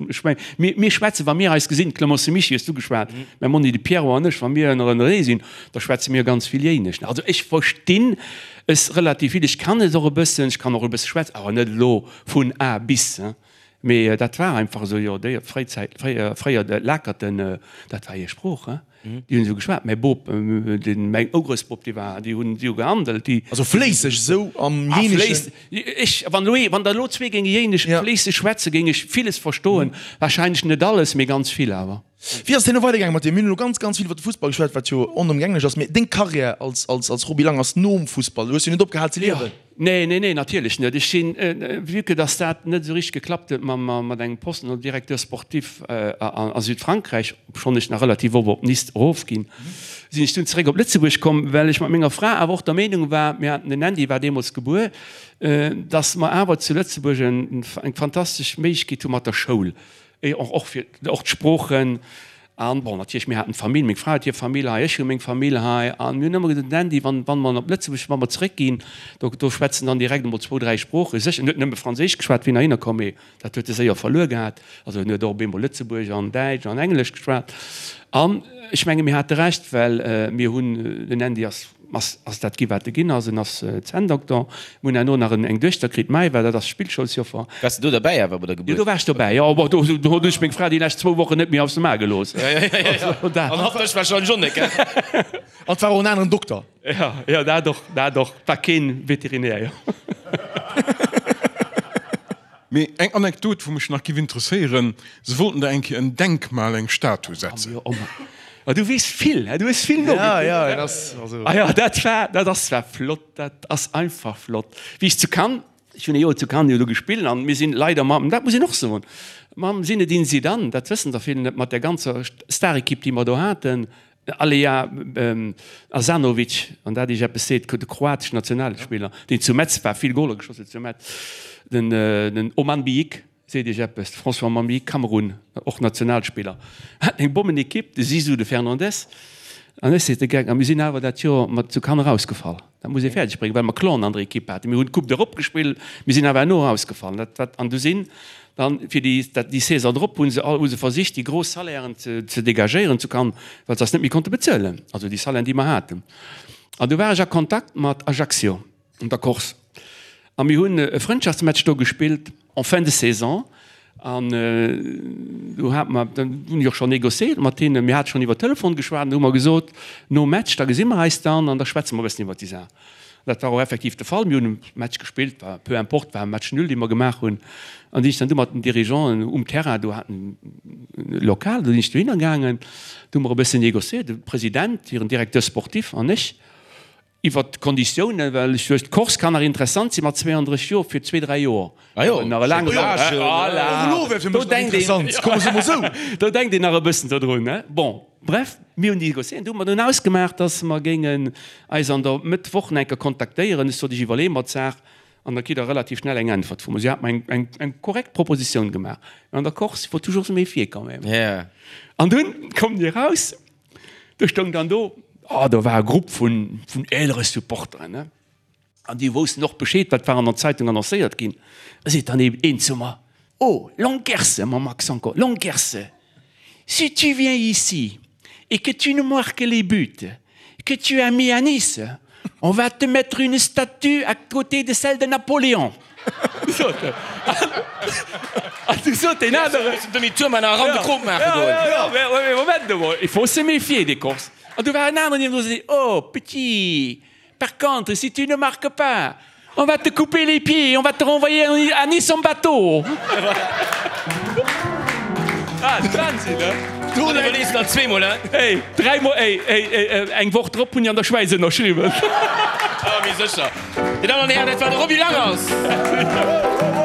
Ech meng, mir, mir schwätzen, wa mir eis gesinn, Clemence Mischy hues du geschwat, mäi Monni de Pierrot an ech, wa mir ënnerenee sinn, da schwätze mir ganz vill Jéinesch. Also ech verstinn es relativ vill, ech kann et och e bëssen, ech kann och e bësse schwätzen, awer net elo vun A bis. Mee dat war einfach esou, jo, déi Fréizäit, fréier, fréier d'Lakerten, dat war hir Sprooch, hein. Déi hunn esou geschwat. Mäi Bop, den, mäin Urgroussbop, dee war, déi hunn, déi hu gehandelt, déi. Also fléisseg esou am Ah, Jéineschen? fléiss, ech, wann elo ee, wann der elo zwee géinge Jéinesch fléisseg schwätzen, géing ech villes verstoen. Wahrscheinlech net alles, mee ganz vill awer. Wéi ass et herno weidergaange mat dir? Mir hunn elo ganz, ganz vill iwwer de Fussball geschwat, wat jo onëmgänglech ass, mee deng Karriär als, als, als Roby Lang ass nom Fussball. Du hues jo net opgehal ze liewen. Nee, nee, nee, natierlech net. Ech sinn, vue que dass dat net esou richteg geklappt huet mam, mat engem Posten als Directeur sportif a Südfrankräich, obschonn ech nach relativ oft op Nice erofginn, sinn ech dunn zeréck op Lëtzebuerg komm, well ech mat menger Fra awer och der Meenung war, mir haten, den Andy war deemools gebuer, dass mer awer zu Lëtzebuerg eng fantastesch Méiglechkeet hu mat der Schoul, Och, och fir och d'Sproochen. An bon, natierlech, mir haten d'Famill, meng Fra huet hir Famill hei, ech hu meng Famill hei. An mir hunn ëmmer gesot, den Andy, wann, wann mer op Lëtzebuerg, wa mer zeréckginn, do, do schwätzen dann direkt emol zwou, dräi Sproochen. Sécher, en huet nëmme Franséisch geschwat, wéi en heihinner komm, mee dat huet e séier verluer gehat. Also en huet och op eemol Lëtzebuergesch an Däitsch an Englesch geschwat. An ech menge mir hate Recht, well mir hunn, den Andy ass, Ass ass dat gi wat e ginn ass. En ass Zänndokter. Mir hunn herno nach en eng Duechter kritt, d'Maëva, dat ass Spillschoulsjoffer. Waars de do derbäi awer bei der Jo, Gebuert? do war ech dobäi, jo. Bon, do do hunn ech meng Fra déi lescht zwou Wochen net méi aus dem A gelooss. Also dat. An hatt dech warscheinlech och net, gell? An et war och en aneren Dokter. Jo, jo, dat och, dat och. War keen Veterinär, jo. Mee eng Anekdot, wou mech nach giff interesséieren, Se wollten der eng Kéier en Denkmal, eng Statue setzen. Oh, oh, du weess vill, du hues vill nogekuckt. Ja, ja, dat ass also. Ah ja, dat war, dat ass zwar flott, dat ass einfach flott. Wéi ech zu Cannes, ech hunn e Joer zu Cannes jo do gespillt an mir sinn leider mam, dat muss een och soen, mam Zinedine Zidane, dat wëssen der vill net, mat där ganzer Starequipe, déi mer do haten. Alea Asanovic, wann dat Iech eppes seet, de kroateschen Nationalspiller, deen zu Metz war, vill Goler geschoss huet zu Metz, den Oman Biyik, seet Iech eppes, de François Oman Biyik, Kamerun, och Nationalspiller, haten eng Bommenekipp, de Zizou, de Fernandes, an ech seet de Geck, a mir sinn awer dat Joer mat zu Cannes erausgefall. Dat muss ee fäerdeg bréngen, well mer Clonen an der Ekipp haten. Mir hunn d'Coupe d'Europe gespillt, mir sinn awer herno erausgefall. Dat wat, an du sinn dann fir déi, dat, déi Saison drop hu se all, hu se versicht déi gros Salairen ze, ze dégagéieren zu Cannes, well se eis net méi konnte bezuelen, also déi Salairen déi mer haten. An du war ech a Kontakt mat Ajaccio an der Corse. A mir hunn e Frëndschaftsmatch do gespillt en fin de saison. An do hate mer, dann hunn ech och schonn négociéiert mat hinnen, mir hate schonn iwwer Telefon geschwat an do hu mer gesot, nom Match, da gesi mer eis dann an da schwätze mer e bëssen iwwer déi Saach. An dat war och effektiv de Fall. Mir hunn e Match gespillt, war peu importe, war e Match nul, dee mer gemaach hunn. An sinn ech dann du mat den Dirigeanten um Terrain, do haten e Lokal, do sinn ech dohinner gaangen, do hu mer e bëssen négociéiert, de President, hiren Directeur sportif an ech. Iwwert d'Konditiounen, well ech duecht, d'Course kann nach interessant sinn mat 32 Joer fir zwee, dräi Joer. Ah jo, nach e laange Voilà, do denkt een, do denkt een nach e bëssen dodrun, ne? Bon, bref, mir hunn négociéiert, du hu mer dunn ausgemaach, dass mer géingen eis an der Mëtt Woch nach eng Kéier kontaktéieren. Ech sot, ech iwwerleeë mer d'Saach an da kritt Der relativ schnell eng Äntwert vu mer. Si hat mer eng, eng, eng korrekt Propositioun gemaach. An der Course, il faut toujours se méfier quand même. An dunn kommen déi eraus. Do stoung dann do, oh, do war e Grupp vun, vun eelere Supporteren, ne? An déi woussten och Bescheed, wat war an der Zeitung annoncéiert ginn. Da seet dann een, een zu mer, Oh, Longerse, mam Accent encore, Longerse, si tu viens ici et que tu nous marques les buts que tu as mis à Nice, On va te mettre une statue à côté de celle de Napoléon. Sot en. An du sot deen aneren. Demi-tour man eran de Krop maache goen. Ja, ja, ja, Moment emol, il faut se méfier des Corses. An du war en aneren niewendru, sot, Oh, petit, par contre, si tu ne marques pas, On va te couper les pieds, on va te renvoyer à Nice en bateau. Ah, Wahnsinn, ne? Du iwwerlees der zweemol, he? Ey, dräimol, ey, ey, ey, eng Woch drop hunn ech an der Schwäiz ënnerschriwwen. Ah, méi sécher. Dir Dammen an Hären, dat war de Roby Langers.